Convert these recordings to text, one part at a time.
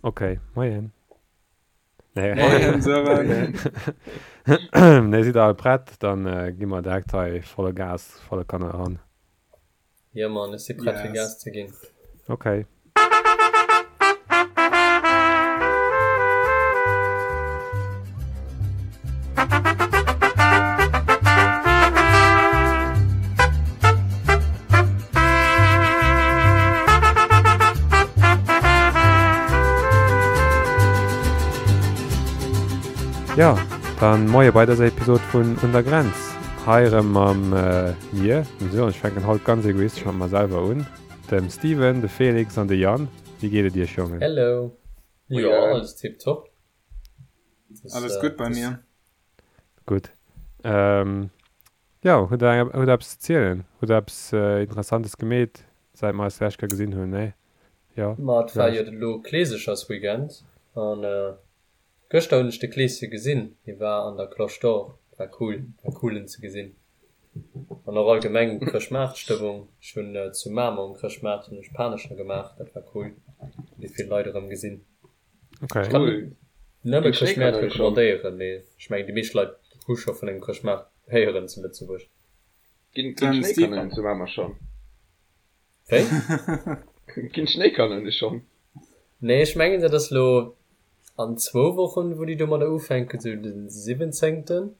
Ok, moien. Nee. Moien Sören. Nee, sidd der all prett? Dann gi mer direkt hei volle Gas, volle Kanne eran. Jo Mann, ech si prett fir Gas ze ginn. Ok. Jo, dann moie bei dëser Episod vun Un der Grenz. Hei erëm mam mir, dem Sören, ech fänken haut ganz egoistesch mat mer selwer un, dem Steven, de Felix an de Yann. Wéi geet et iech, Jongen? Hello. Jo, alles tiptop. Alles gutt bei mir. Gutt. Jo, hutt der hutt der eppes ze zielen? Hutt der eppes Interessantes gemeet, säit mer eis d'lescht Kéier gesinn hunn? Nee? Jo? Ma et war jo elo Kleesechersweekend an gëschter hunn ech de Kleeschen gesinn. Hie war an der Cloche d'Or. War cool, war cool en ze gesinn. An och allgemeng Chrëschtmaartstëmmung. Ech hunn zu Mamer um Chrëschtmaart hunn ech Panescher gemaach, dat war cool. Hunn déi vill Leit erëm gesinn. Okay. Ech kann nëmme Chrëschtmäert recommandéieren, mee ech mengen déi meescht Leit hu scho vun engem Chrëschtmaart héieren zu Lëtzebuerg. Ginn d'Schnéikanonen zu Mamer schonn? Wéi? Ginn d'Schnéikanoune schonn? Nee, ech mengen dat ass lo an zwou Wochen, wou déi domadder ufänken, sou den siwwenzéngten.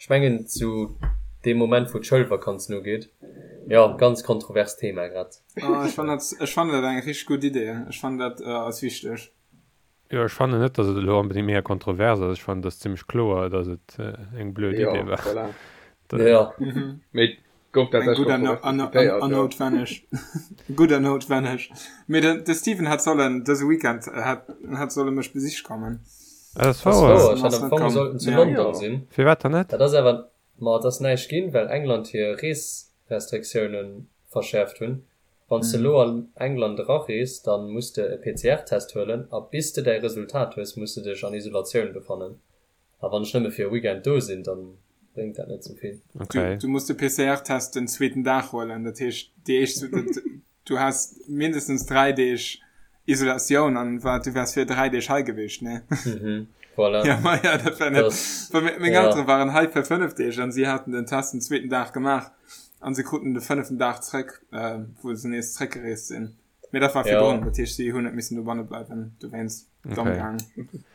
Ech mengen zu deem Moment wou d'Schoulvakanzen ugeet. Jo, ganz kontrovers Thema grad. Oh, ech fannen dat, ech fannen dat eng richteg gutt Idee. Ech fannen dat ass wichteg. Jo, ech fannen net, datt et elo onbedéngt mega kontrovers ass. Ech fannen, et ass zimmlech kloer, datt et eng blöd Jo, Idee war. voilà. Jo. Mee et gouf Eng tatsächlech gutt an, kontrovers an, an, diskutéiert, an jo. noutwenneg. Gutt an noutwenneg. Mee den, de Steven hätt sollen dëse Weekend hätt, hätt solle mech besiche kommen. Ah, dat ass Ass wouer. wouer, ech hat am Fong sollten zu London sinn. Firwat dann net? Dat ass awer, ma et ass näischt ginn, well England hir Reesrestriktioune verschäerft hunn. Wann s de elo an England erarees, da muss de e PCR-Test huelen a bis de däi Resultat hues, muss de dech an Isolatioun befannen. A wann ech nëmme fir e Weekend do sinn, da bréngt dat net sou vill. Okay. Du muss de PCR-Test den zweeten Dag huelen, dat heescht déi éischt, Du has mindestens 3 Deeg Isolatioun an wat du wärs fir 3 Deeg hei gewiescht, ne? Mhm, voilà. Ja, ma ja, dat war net. Das, Well meng ja. Eltere waren hei fir 5 Deeg an si haten den Test den zweeten Dag gemaach an se kruten de fënneften Dag zréck, äh, wou se nees zréckgereest sinn. Mee dat war Ja. virdrun, dat heescht si hunn net missen dobanne bleiwen, dowéinst domm Okay. gaang.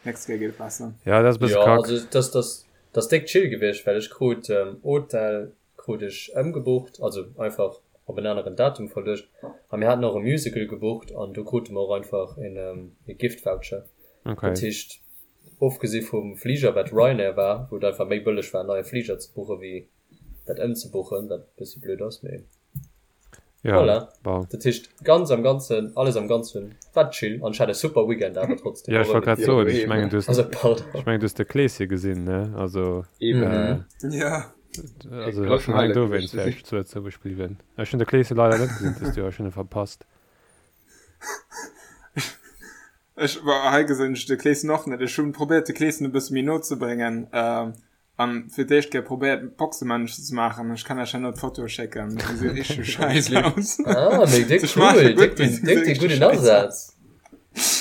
Nächst Kéier geet et besser. Ja, dat ass e bësse Ja, kack. also das, das, das déck chill gewiescht, well ech krut ähm, Hotel krut ech ëmgebucht, also einfach op en aneren Datum verluecht. A mir haten och e Musical gebucht an do krute mer och einfach en e Gift Voucher. Okay. Dat heescht, ofgesi vum Fliger, wat Ryanair war, wou et einfach méi bëlleg war en neie Fliger ze buche wéi dat ëmzebuchen, wat e bëssi blöd ass, mee Ja, voilà. bon. Dat heescht, ganz am Ganzen, alles am Ganzen war chill an ech hat e super Weekend awer trotzdem. Ja, ech och wollt ouni grad Jo, soen, ech eben. mengen du hues, Also pardon. ech mengen du hues de Kleeschen gesinn, ne? Also, Eben. äh, Ja. also Grossen schon alleng Highlight dowéinst gewiescht ze wär sinn. ech zu Lëtzebuerg bliwwen. Ech hunn de Kleeschen leider net gesinn dëst Joer, ech hunn e verpasst. Ech war hei gesinn ech de Kleeschen och net. Ech hunn probéiert de Kleeschen e bësse méi no ze bréngen. Ähm, An fir d'éischt Kéier probéiert Boxemännchen ze maachen. Ech kann iech herno d'Fotoe schécken. Déi gesi richteg scheiss aus. Ah, méi déck Se schmaache cool, gutt, déck mee den, se déck gesi den richteg gudden scheiss aus. Asaz.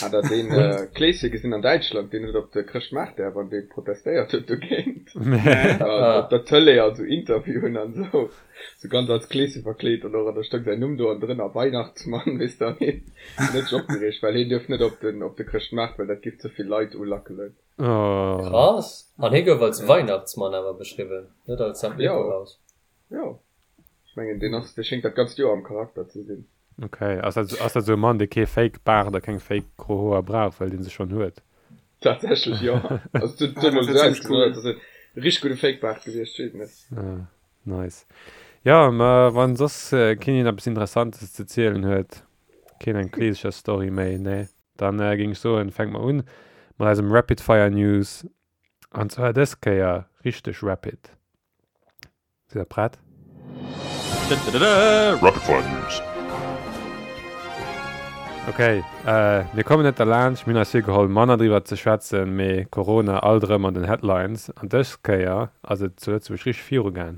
Hat der deen Kleeschen gesinn an Däitschland, deen huet op de Chrëschtmaart däerf an dee protestéiert huet dogéint? Nee. Ah. Op der Tëlee an sou Interviewen an sou, sou ganz als Kleeschen verkleet an och an da stoung säin Numm do an drënner Weihnachtsmann, weess de, an hien huet sech opgereegt, well hien duerf net op den op de Chrëschtmaart, well dat giff ze vill Leit ulackelen. Oh. Krass! An hie gouf als Weihnachtsmann awer beschriwwen, net als Sankt Jo, Nikolaus. jo. Ech mengen, deen ass, dee schéngt dat ganzt Joer am Charakter ze sinn. Ok, ass dat, ass dat esou e Mann, dee kee Fake Baart a keng Fake gro Hoer brauch, well dee se schonn huet? Tatsächlech, jo. Also, et huet Ah, dat emol wär esou zimmlech ausgesinn, cool. als ass e richteg gudde Fake Baart gewiescht, ech weess et net. Ah, nice. Jo, ma wann soss keen een eppes Interessantes ze zielen huet, keen eng Kleesecher-Story méi, nee? Dann géing ech soen, fänke mer un mat eisem Rapid Fire News. An zwar dës Kéier richteg rapid. Sidd der prett? Rapid Fire News. Ok, mir kommen net derlaanscht, mir hunn eis virgeholl manner driwwer ze schwätzen, mee Corona alt erëm an den Headlines. An dës Kéier ass et zu Lëtzebuerg richteg virugaang.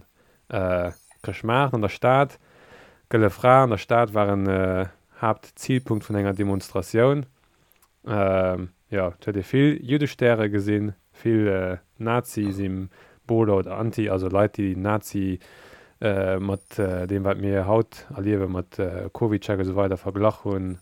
Chrëschtmaart an der Stad, Gëlle Fra an der Stad war en Haaptzilpunkt vun enger Demonstratioun. Jo, et huet ee vill Juddestäre gesinn, vill Nazi-Symboler oder Anti, also Leit, déi Nazi mat deem, wat mir haut erliewen, mat CovidCheck esou weider verglach hunn.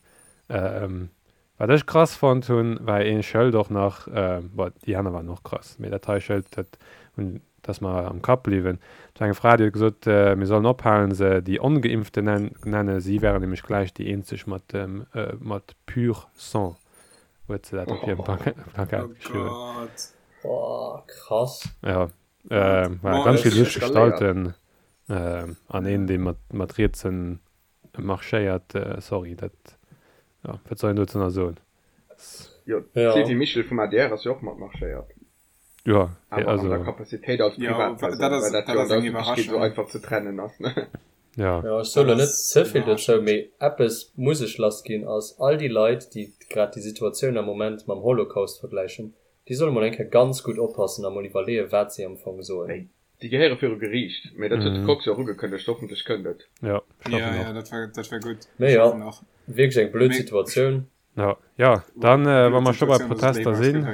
Wat ech krass fonnt hunn, war ee Schëld och nach, bon, déi aner waren och krass, mee dat hei Schëld, dat hunn, dat ass mer am Kapp bliwwen. Et war eng Fra, déi huet gesot, mir sollen ophalen, se déi Ongeimpften nennen, si wären nämlech gläich déi eenzeg mat, mat pur sang, huet se dat op hirem Plakat geschriwwen. Oh Gott. Boah, krass. Jo, war ganz vill lusch Gestalten an een, dee mat, mat rietsen Marschéiert, sorry, dat, jo, wat soll een dozou nach soen? Jo, d'Sylvie Mischel vum adr ass jo och mat marschéiert. Jo, awer an der Capacitéit als Privatpersoun, well dat jo an der Ëffentlechkeet esou einfach ze trennen ass, ne? Jo. Jo, ech soe lo net ze vill dozou, mee eppes muss ech lassginn, ass all déi Leit, déi grad déi Situatioun am Moment mam Holocaust vergläichen, déi solle mol eng Kéier ganz gutt oppassen a mol iwwerleeën, wat si am Fong soen. Déi gehéiere viru Geriicht, mee dat huet de Kox jo och ugekënnegt, hoffentlech kënnt et. Jo, ech hoffen och. Jo, dat war, dat war gutt. Mee jo, wierklech eng blöd Situatioun. Jo, jo, dann, wa mer scho bei Protester sinn,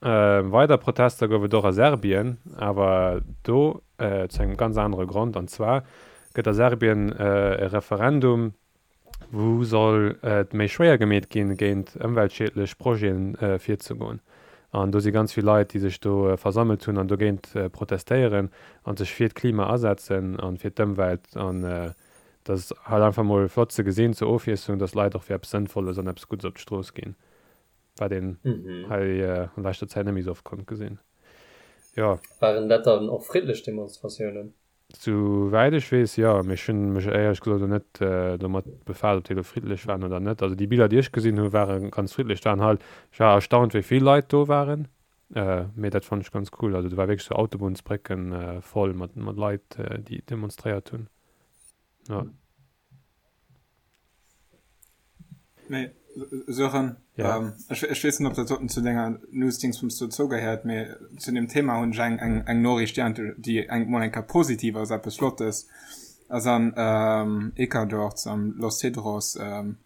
weider Protester gouf et och a Serbien, awer do zu engem ganz anere Grond, an zwar gëtt a Serbien e Referendum Wou soll et méi schwéier gemeet ginn, géint ëmweltschiedlech Projeten virzegoen? An do si ganz vill Leit, déi sech do versammelt hunn an dogéint protestéieren a sech fir d'Klima asetzen a fir d'Ëmwelt. An dat ass halt einfach mol flott ze gesinn zur Ofwiesslung, dass Leit och fir eppes Sënnvolles an eppes Guddes op d'Strooss ginn, wat een hei an leschter Zäit net méi esou oft konnt gesinn. Jo. Waren dat dann och friddlech Demonstratiounen? Sou wäit ech weess, jo. Mee ech hunn mech éierlech gesot elo net domat befaasst, ob déi elo friddlech waren oder net. Also déi Biller, déi ech gesinn hunn, ware ganz friddlech. Et waren halt, ech war erstaunt, wéi vill Leit do waren. Mee dat fonnt ech ganz cool. Also do war wierklech sou Autobunnsbrécken voll mat Leit, déi demonstréiert hunn. Jo. Mee Sören, ja. ähm, ech, ech weess net, ob dat doten zu denger News-Dingsbums dozou gehéiert, mee zu dem Thema hunn ech eng, eng, eng Noriicht, déi, déi eng mol eng Kéier positiv ass, eppes Flottes. Ass an ähm, Ecuador am Los Cedros ähm,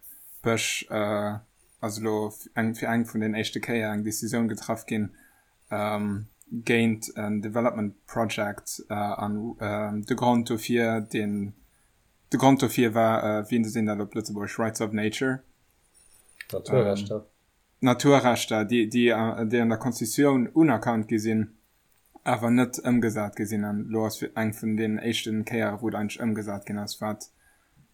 Bësch äh, ass elo eng, fir eng vun den éischte Kéier eng Decisioun getraff ginn ähm, géint en Development Project äh, an ähm, de Grond dofir, deen De Grond dofir war, wéi sinn dat op Lëtzebuergesch, Rights of Nature? Naturrechter. Naturrechter, déi, déi, déi an der Constitutioun unerkannt gi sinn, awer net ëmgesat gi sinn. An elo ass eng vun deenen éischten Kéiere wou et eigentlech ëmgesat ginn ass, wat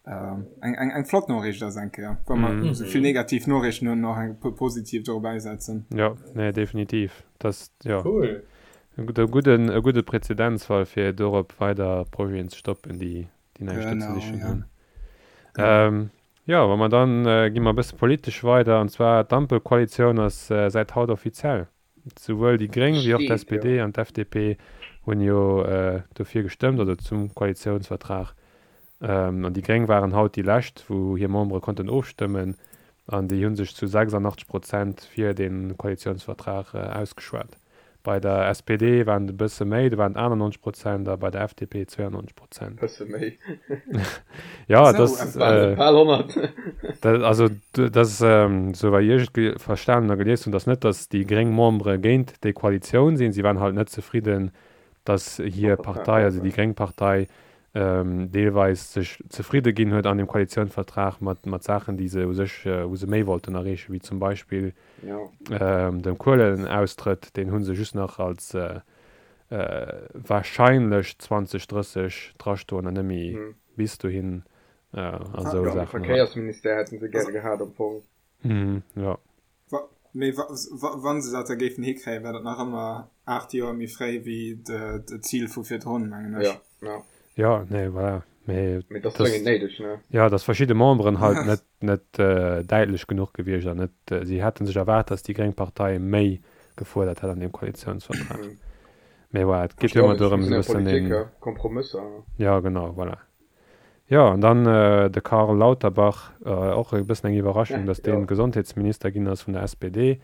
eng, eng, eng flott Noriicht ass eng Kéier. Wa mer esou vill negativ Noriichten hunn, och eng puer positiv do erbäisetzen. Jo, nee, definitiv. Dat, jo. Cool. E gudden, e gudde Präzedenzfall, fir dorop weider Projeten ze stoppen, déi, déi näischt do ze sichen hunn. Jo, wa mer dann, gi mer e bësse politesch weider, an zwar d'Ampelkoalitioun ass säit haut offiziell. Souwuel déi Gréng wéi och d'SPD an d'FDP hunn jo dofir gestëmmt, also zum Koalitiounsvertrag. An déi Gréng waren haut déi lescht, wou hir Membere konnten ofstëmmen, an déi hu sech zu 86 Prozent fir dee Koalitiounsvertrag ausgeschwat. Bei der SPD waren et e bësse méi, do waren et 98 Prozent a bei der FDP 92 Prozent. Bësse méi. Jo, et ass, Bal 100. also dat ass, esou wei ech et verstanen a gelies hunn, datt net, datt déi gréng Membere géint déi Koalitioun sinn, si waren halt net zefridden, datt hir Partei, also déi gréng Partei, deelweis sech zefridde ginn huet an dem Koalitiounsvertrag mat, mat Saachen, déi se u sech, wou se méi wollten erreechen, wéi zum Beispill dem Kuelenaustrëtt, deen hu se just nach als wahrscheinlech 2030 drastoen an net méi bis dohin a sou Saachen. De Verkéiersministère hätte se gäre gehat am Fong. Jo. Mee wa se dat da géifen hikréien, wär dat nach ëmmer 8 Joer méi fréi wéi d'Zil vu virdrun, mengen ech. Jo, jo. Nee, voilà. Mee Mee dat ass dréngend néideg, ne? Jo, datt verschidde Memberen halt net, net däitlech genuch gewiescht an net, si hätte sech erwaart, datt déi gréng Partei méi gefuerdert hätt an deem Koalitiounsvertrag. Mee voilà, et geet jo ëmmer dorëm, esou e bëssen den. Kompromësser. Jo, genau, voilà. Jo, an dann de Karl Lauterbach, och e bëssen eng Iwwerraschung, datt dee Gesondheetsminister ginn ass vun der SPD,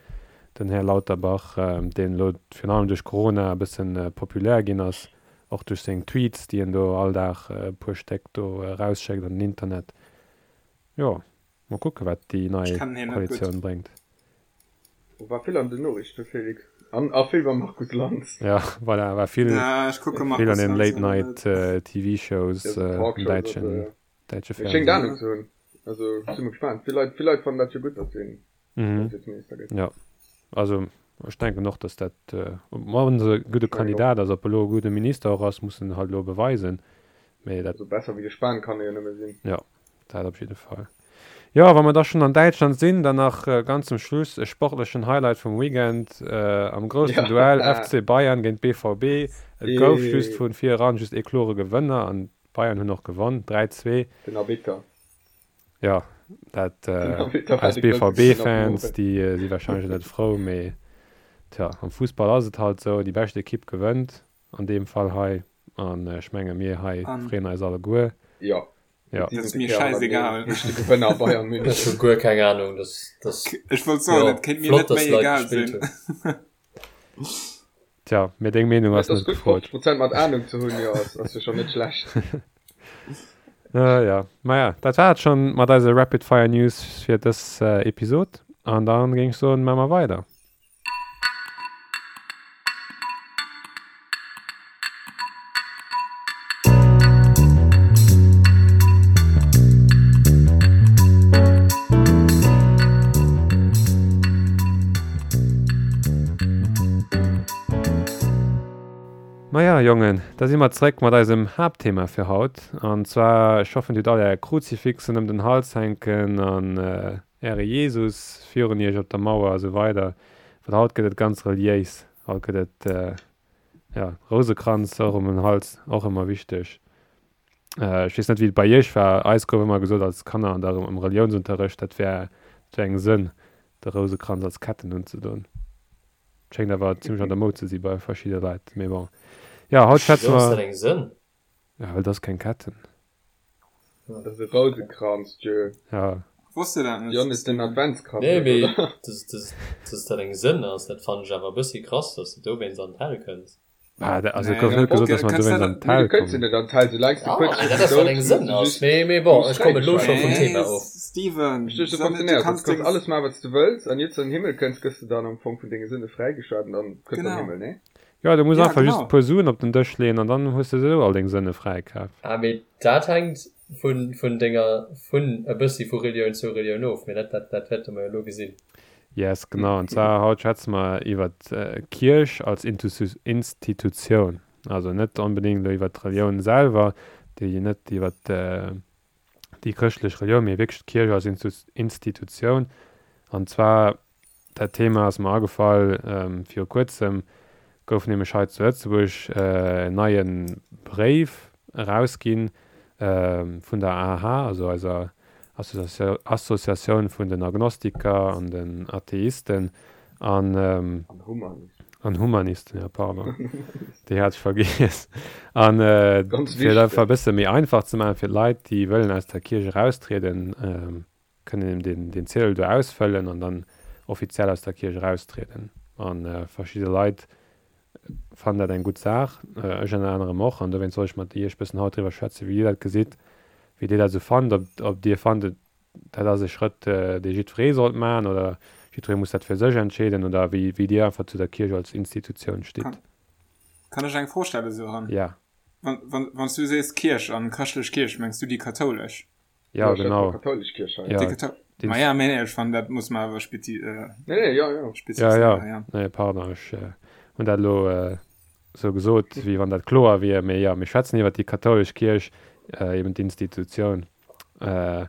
den Här Lauterbach, deen elo virun allem duerch Corona e bëssen populär ginn ass, och duerch seng Tweets, déi en do all Dag e puer Stéck do erausschéckt an den Internet. Jo, mol kucke wat déi nei Koalitioun bréngt. War vill an den Noriichten, Felix. An a vill beim Markus Lanz. Ja, voilà, war vill, Ja, ech kucke vill Markus an den Lanz Late awer Night net. TV Shows Ja, so am Talkshows a däitschen, sou, ja. däitsche Mee schéngt Fernsehen. Ahnung ze hunn. Also ech si mol gespaant. Vill Leit, vill Leit fannen dat jo gutt, datt hien Mhm. Justizminister gëtt. Ja, also ech denken och, datt dat, wann se e gudde Ech mengen och. Kandidat ass, ob e lo e gudde Minister och ass, muss en halt elo beweisen, mee dat. Also besser wéi de Spahn kann e jo nëmme sinn. Jo, dat op jidde Fall. Jo, wa mer da schonn an Däitschland sinn, dann nach ganz zum Schluss e sportlechen Highlight vum Weekend am groussen Duell FC Bayern géint BVB. Et gouf just vu vir eran just ee klore Gewënner an d'Bayern hunn och gewonn, 3, 2. Den Arbitter. Jo, dat eis BVB-Fans, déi si warscheinlech net frou, mee tja, am Fussball ass et halt esou, déi bescht Ekipp gewënnt, an deem Fall hei. An ech menge mir hei freeën eis alleguer. Jo, Ja. Dat ass mir schäisegal. Heescht de Gewënner Bayern Ech München. hu guer keng Ahnung, dass dass Ech wollt soen, jo et kéint mir flott net dass méi Leit egal gespillt sinn. hunn. Tja, mee deng Meenung Et ass ass net gutt gefrot. 50 Prozent mat Ahnung ze hunn, jo ass ass jo schonn net schlecht. Äh, ja, maja, dat war et schonn mat eise Rapid Fire News fir dës Episod. An dann géing ech soen, maache mer weider. Maja Jongen, da si mer zréck mat eisem Haaptthema fir haut. An zwar, ech hoffen dir hutt all är Kruzifixen ëm den Hals hänken an Äre Jesus virun iech op der Mauer a sou weider, well haut gëtt et ganz reliéis, haut gëtt et, jo, Rousekranz och ëm den Hals, och ëmmer wichteg. Ech weess net, wéi et bei iech war, eis gouf ëmmer gesot als Kanner an der, am Reliounsunterrecht, dat wär, dat wär eng Sënn, de Rousekranz als Ketten unzedoen. Schéngt awer zimmlech an der Moud ze si bei verschidde Leit, mee bon. Jo, haut schwätze Wisou ass mer. dat eng Sënn? Ja, well et ass keng Ketten. Dat ass e Rousekranz, Tjö. Ja. Wosst de dat net, Jon is den Steven? Adventskranz Nee, net, mee oder? dass, dass, dass dat eng Sënn ass, dat fannen ech awer e bëssi krass, dass de dowéinst an d'Hell kënns. Ah, da, also Nee, gouf net gesot, okay, dass mer kënns dowéinst dat an Nee, du d'Hell kënns jo kommen. net an d'Hell, soulaangs du Ah, kuerz mee dat virum ass wat Doud eng muss Sënn du ass. just, Mee, mee du bon, muss ech komme lo scho fräigeschalt vum ginn. Thema Nee, of. Steven, Verstees du, sou net, du funktionéiert dat. kanns Du kanns deng. alles maachen, wat s du wëlls, an iert s du an den Himmel kënns, gëss du dann am Fong vun denge Sënne fräigeschalt an dann kënns du an den Genau. Himmel, nee? Jo, du muss Ja, einfach just e genau. puer Suen op den Dësch leeën an dann hues de esou all deng Sënne fräikaf. Ah, mee dat hänkt vun, vun denger, vun e bëssi vu Relioun zu Relioun of, mee dat, dat, dat wäerte mer jo elo gesinn. Yes, genau. An zwar haut schwätze mer iwwer d'Kierch als Institutioun. Also net onbedéngt elo iwwer d'Relioun selwer, déi net iwwer déi chrëschtlech Relioun, mee wierklech d'Kierch als Institutioun. An zwar Dat Thema ass mer agefall, viru kuerzem gouf nämlech hei zu Lëtzebuerg en neie Bréif erausginn vun der AH, also eiser Associatioun vun den Agnostiker an den Atheisten an an Humanisten, jo pardon, déi hat ech vergiess. An fir et einfach e bësse méi einfach ze maachen fir d'Leit, déi wëllen aus der Kierch eraustrieden, kënnen een deen Ziedel do ausfëllen an dann offiziell aus der Kierch eraustrieden. A verschidde Leit fannen dat eng gutt Saach, ech ënner anerem och. An dowéinst wollt ech mat Iech bëssen haut driwwer schwätzen, wéi Dir dat gesitt, wéi Dir dat esou fannt, ob ob Dir fannt, dat ass e Schrëtt, dee jiddweree sollt maachen oder jiddweree muss dat fir sech entscheeden oder wéi wéi Dir einfach zu der Kierch als Institutioun stitt. Kann, kann ech eng Fro stellen, Sören? Ja. Wann, wann, wann s du sees Kierch an chrëschtlech Kierch, mengs du déi kathoulesch? Ja, genau. Katholisch Kirche. Ja, die Ma ja, nee, ich fand, dat muss man awer spezi äh, nee, nee, ja, ja. Ja, ja. ja. Nee, pardon, ech äh, hunn dat lo äh, sou gesot, wéi wann dat kloer wier. Mee ja, mir schwätzen iwwer déi kathoulesch Kierch, äh, eben d'Institutioun. Äh,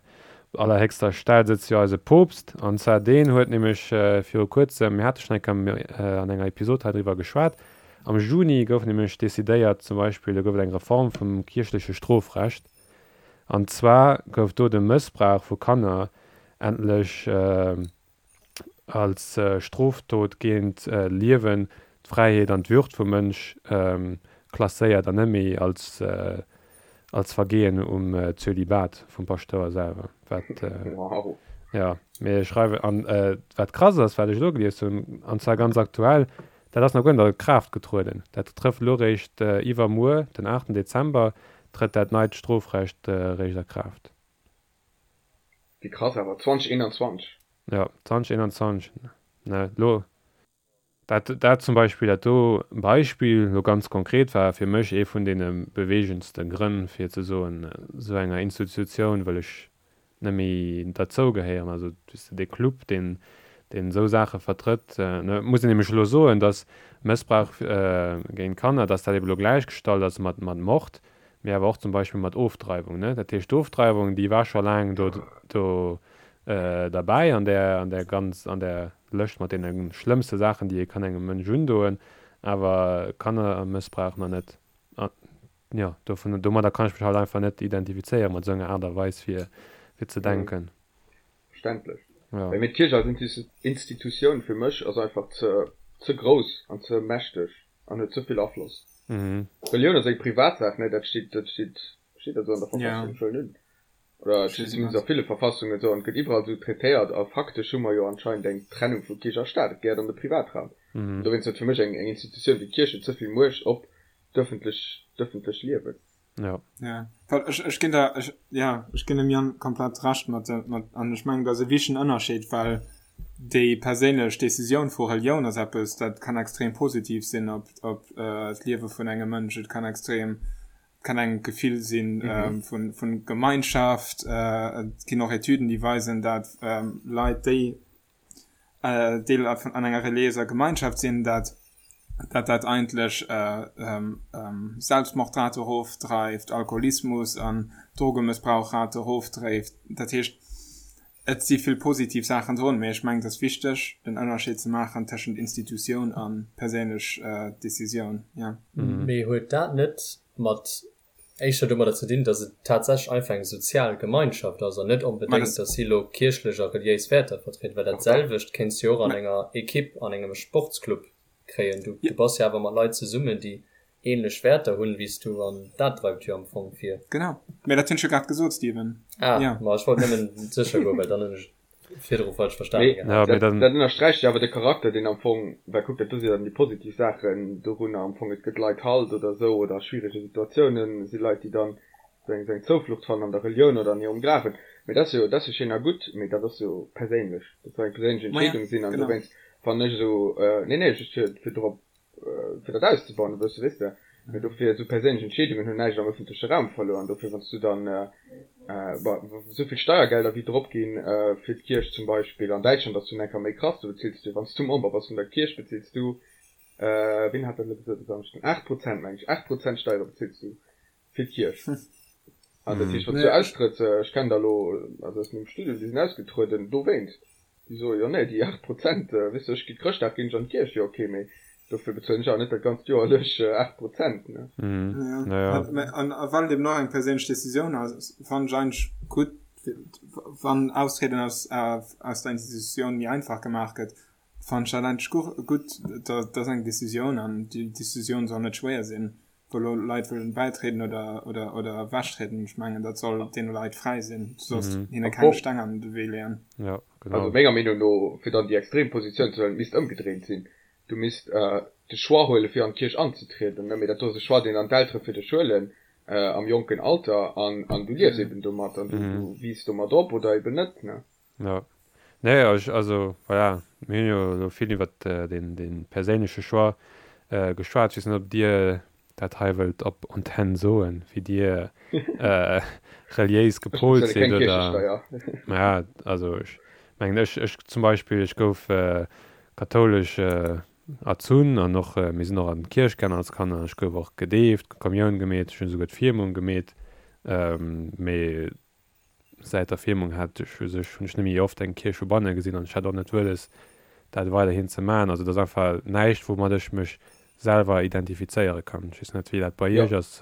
op allerhéchster Stell sëtzt jo eise Poopst, an zwar deen huet nämlech äh, viru kuerzem, mir hate schonn eng Kéier äh, an enger Episod hei driwwer geschwat, am Juni gouf nämlech decidéiert, zum Beispill, do gouf et eng Reform vum kierchleche Strofrecht, An zwar gouf do de Mëssbrauch vu Kanner endlech als Strofdot géint d'Liewen, d'Fräiheet an d'Würd vum Mënsch klasséiert an net méi als als Vergehen um Zölibat vum Paschtouer selwer. Wat, jo, mee schreiwen an wat krass ass, wat ech elo gelies hunn, an zwar ganz aktuell, Dat ass nach guer net a Kraaft getrueden. Dat trëfft elo réischt iwwermuer, den aachten Dezember, trëtt dat neit Strofrecht réischt a Kraaft. Wéi krass awer, 2021. Jo, 2021. Ne, lo, dat, dat zum Beispill, dat do Beispill lo ganz konkret war fir mech ee vun deene beweegendste Grënn fir ze soen, esou enger Institutioun wëll ech net méi derzou gehéieren. Also weess de, dee Club, deen, deen esou Saache vertrëtt, ne, muss een nämlech elo soen, datt Mëssbrauch géint Kanner, datt dat ebe lo gläichgestallt ass mat, mat Mord, mee awer och zum Beispill mat Ofdreiwung, ne. Dat heescht, d'Ofdreiwung, déi war scho laang do, do derbäi an där, an där ganz, an där Lëscht mat deene schlëmmste Saachen, déi ee kann engem Mënsch undoen, awer Kannermëssbrauch nach net. An jo, dovun, domadder kann ech mech halt einfach net identifizéieren, mat esou enger Aart a Weis fir, fir ze denken. Verständlech. Ja. Mee d'Kierch als Institutioun fir mech ass einfach ze, ze grouss an ze mächteg an huet ze vill Afloss. Relioun ass eng Privatsaach, ne? Dat steet, dat steet, steet dat esou an der Verfassung? Ech wëll net. Oder et steet zumindest a ville Verfassungen esou an et gëtt iwwerall esou traitéiert a faktesch hu mer jo anscheinend eng Trennung vu Kierch a Staat. Et gehéiert an de Privatraum. An dowéinst huet fir mech eng Institutioun wéi d'Kierch huet ze vill Muecht op d'ëffentlech, d'ëffentlech Liewen. Jo. Ja, well ech, ech ginn der, ech, ja, ech ginn dem Yann komplett Recht mat, mat, an ech mengen, dat ass e wichtegen Ënnerscheed, well déi perséinlech Decisioun vu Relioun ass eppes, dat kann extrem positiv sinn op, op d'Liewe vun engem Mënsch. Et kann extrem, kann engem d'Gefill sinn vun, vun Gemeinschaft. Et ginn och Etüden, déi weisen, dat Leit, déi Deel vun an enger reliéiser Gemeinschaft sinn, dat dat dat eigentlech Selbstmordrate erofdreift, Alkoholismus an Drogemëssbrauchrate erofdréift. Dat heescht, et si vill positiv Saachen drun, mee ech mengen, et ass wichteg, den Ënnerscheed ze maachen tëschent Institutioun a perséinlech Decisioun. Jo. Mee huet dat net mat éischter domadder ze dinn, datt et tatsächlech einfach eng sozial Gemeinschaft ass an net onbedéngt, datt si elo kierchlech a reliéis Wäerter vertrieden, well dat selwecht kéints du jo och an enger Equipe, an engem Sportsclub kréien. Du bass jo awer mat Leit zesummen, déi ähnlech Wäerter hunn wéi s du an dat dreift jo am Fong vir. Genau, mä dat hunn ech jo grad gesot, Steven. Ah, ma ech wollt nëmmen sécher goen, well dann hunn ech virdru falsch verstanen gehat. Ja, dat, dat ënnersträicht jo awer de Charakter, deen am Fong, well kuck, dat do si jo dann déi positiv Saachen dorunner am Fong, et gëtt Leit Halt oder esou oder a schwierege Situatiounen si Leit, déi dann esou eng, esou eng Zouflucht fannen an der Relioun oder an hirem Glawen. Mee dat ass jo, dat ass jo schéin a gutt, mee dat ass jo perséinlech, dat soll eng perséinlech Entscheedung sinn an dowéinst fannen ech esou, nee, nee, just fir, fir dorop fir dat auszebauen e bësse, weess de. Mee dofir, esou perséinlech Entscheedungen hunn näischt am ëffentleche Raum verluer. An dofir, wann s du dann, bon, esou vill Steiergelder wéi drop ginn fir d'Kierch zum Beispill, an Däitschland ass dunn eng Kéier méi krass, do bezills du, wann s du Member bass vun der Kierch, bezills du, wien hat dat elo gesot e Samschden, 8 Prozent, meng ech, 8 Prozent Steiere bezills du fir d'Kierch. An dat heescht, wann s du austrëtts, ech kennen der elo, also aus mengem Studium, déi sinn ausgetrueden dowéinst. Déi soe jo, nee, déi 8 Prozent, weess de, ech gi Chrëschtdag ginn ech an d'Kierch, jo ok, mee dofir bezuelen ech awer net dat ganzt Joer lech 8 Prozent, ne. Jo, an well et eben och eng perséinlech Decisioun ass, fannen ech eigentlech gutt, wann Austrieden aus aus der Institutioun méi einfach gemaach gëtt, fannen ech dat eigentlech gutt. Dat ass eng Decisioun an déi Decisioun soll net schwéier sinn. wou elo Leit wëllen bäitrieden oder, oder, oder ewechtrieden, ech mengen, dat soll deene Leit fräi sinn. Du solls hinne keng Steng an de Wee leeën. Ja, genau. Also menger Meenung no, fir dann déi extrem Positioun ze huelen, et misst ëmgedréint sinn. Du misst de Choix huelen, fir an d'Kierch anzetrieden, ne, mee dat do ass e Choix, deen dann d'Eltere fir dech huelen am jonken Alter an, an du liefs eben domat an du, du wiisst domat op oder eben net, ne. Jo. Nee, ech, also voilà, mir hunn jo elo vill iwwert deen, dee perséinleche Choix geschwat. Ech weess net, ob Dir dat hei wëllt op Antenn soen, wéi Dir reliéis gepolt sidd oder. Keng Kierchesteier. Ja, also ech mengen, ech, ech zum Beispill, ech gouf kathoulesch erzunn an och, mir sinn och an d'Kierch gaangen als Kanner. Ech gouf och gedeeft, Kommioun gemeet, ech hunn esouguer d'Firmung gemeet. Mee Säit der Firmung hat ech u sech, hunn ech net méi oft eng Kierch vu banne gesinn an ech hat och net wëlles, dat weiderhin ze maachen. Also et ass einfach näischt, woumat ech mech selwer identifizéiere kann. Ech weess net, wéi dat bei Jo. Iech ass.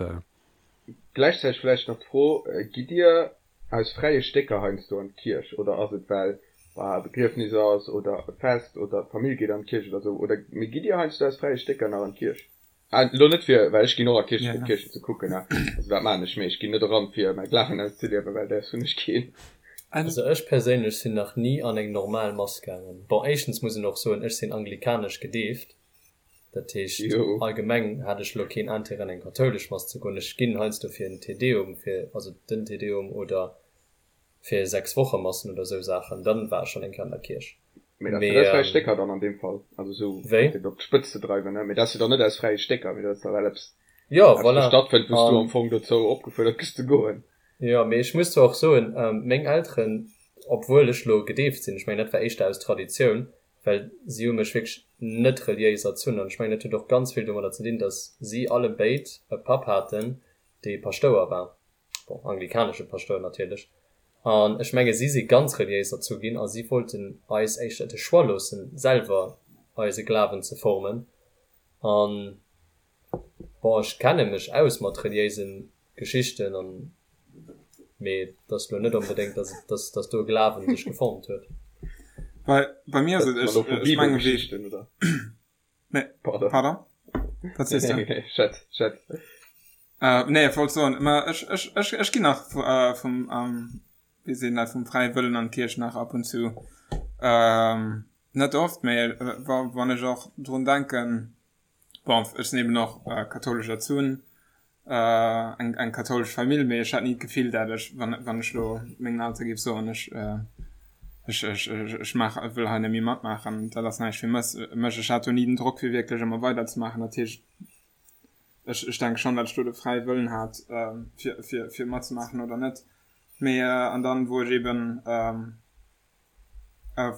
Gläichzäiteg vläicht nach d'Fro, Gitt Dir aus fräie Stécker heiansdo an d'Kierch oder ass et well e Begriefnis ass oder e Fest oder d'Famill geet an d'Kierch oder esou oder mee gitt Dir heiansdo aus fräie Stécker nach an d'Kierch? Ah, lo net fir, well ech ginn och a Kierchen, fir d'Kierchen ze kucken, ne, also dat maachen ech, mee ech ginn net eran, fir mäi Glawen auszeliewen, well däers hunn ech keen. Also ech perséinlech sinn nach ni an eng normal Mass gaangen. Bon, éischtens muss een och soen, ech sinn anglikanesch gedeeft, dat heescht allgemeng hat ech lo keen Intérêt an eng kathoulesch Mass ze goen. Ech ginn heiansdo fir en Te Deum, fir, also den Te Deum oder fir 6 Woche Massen oder sou Saachen, dann war ech schonn eng Kéier an der Kierch. Mee dat ass fräi Stécker dann an deem Fall, also sou fir op d'Spëtz ze dreiwen, ne? Mee dat ass jo dann net aus fräie Stécker, mee dat ass da well eppes jo, voilà. stattfënnt, wou s du am Fong dozou opgefuerdert gëss ze goen. Jo, mee ech muss zwar och soen, meng Elteren, obwuel ech lo gedeeft sinn, ech mengen dat war éischter aus Traditioun, well si hu mech wierklech net reliéis erzunn an ech mengen dat huet och ganz vill domadder ze dinn, datt si allebéid e Papp haten, dee Paschtouer war. bon, anglikanesche Paschtouer natierlech, an ech menge si si ganz reliéis erzu ginn a si wollten eis éischter de Choix loossen, selwer eise Glawen ze formen. An, bon, ech kenne mech aus mat reliéise Geschichten an, mee et ass lo net onbedéngt, dass et, dass, dass do e Glawen sech geformt huet. Bei, bei mir ass et, ech, ech menge wéi. Nee, Pardon. Pardon? Wat sees du? Nee, nee, schätz, schätz. Äh, nee, ech wollt soen, ma ech, ech, ech, ech ginn nach äh, vum, ähm, wéi seet een dat, vum fräie Wëllen an d'Kierch nach ab und zu. Ähm, net oft, mee äh, wa, wann ech och drun denken, bon, ech sinn eben och äh, kathoulesch erzunn, eng eng kathoulesch Famill, mee ech hat ni d'Gefill, dat ech, wann wann ech lo mengen Eltere géif soen, ech ech ech ech maach wëll hei net méi matmaachen, dat ass näischt fir mech mech. Ech hat do ni den Drock fir wierklech ëmmer weider ze maachen. Dat heescht, ech ech denke schonn, dat ech do de fräie Wëllen hat fir fir fir matzemaachen oder net. Mee an dann wou ech eben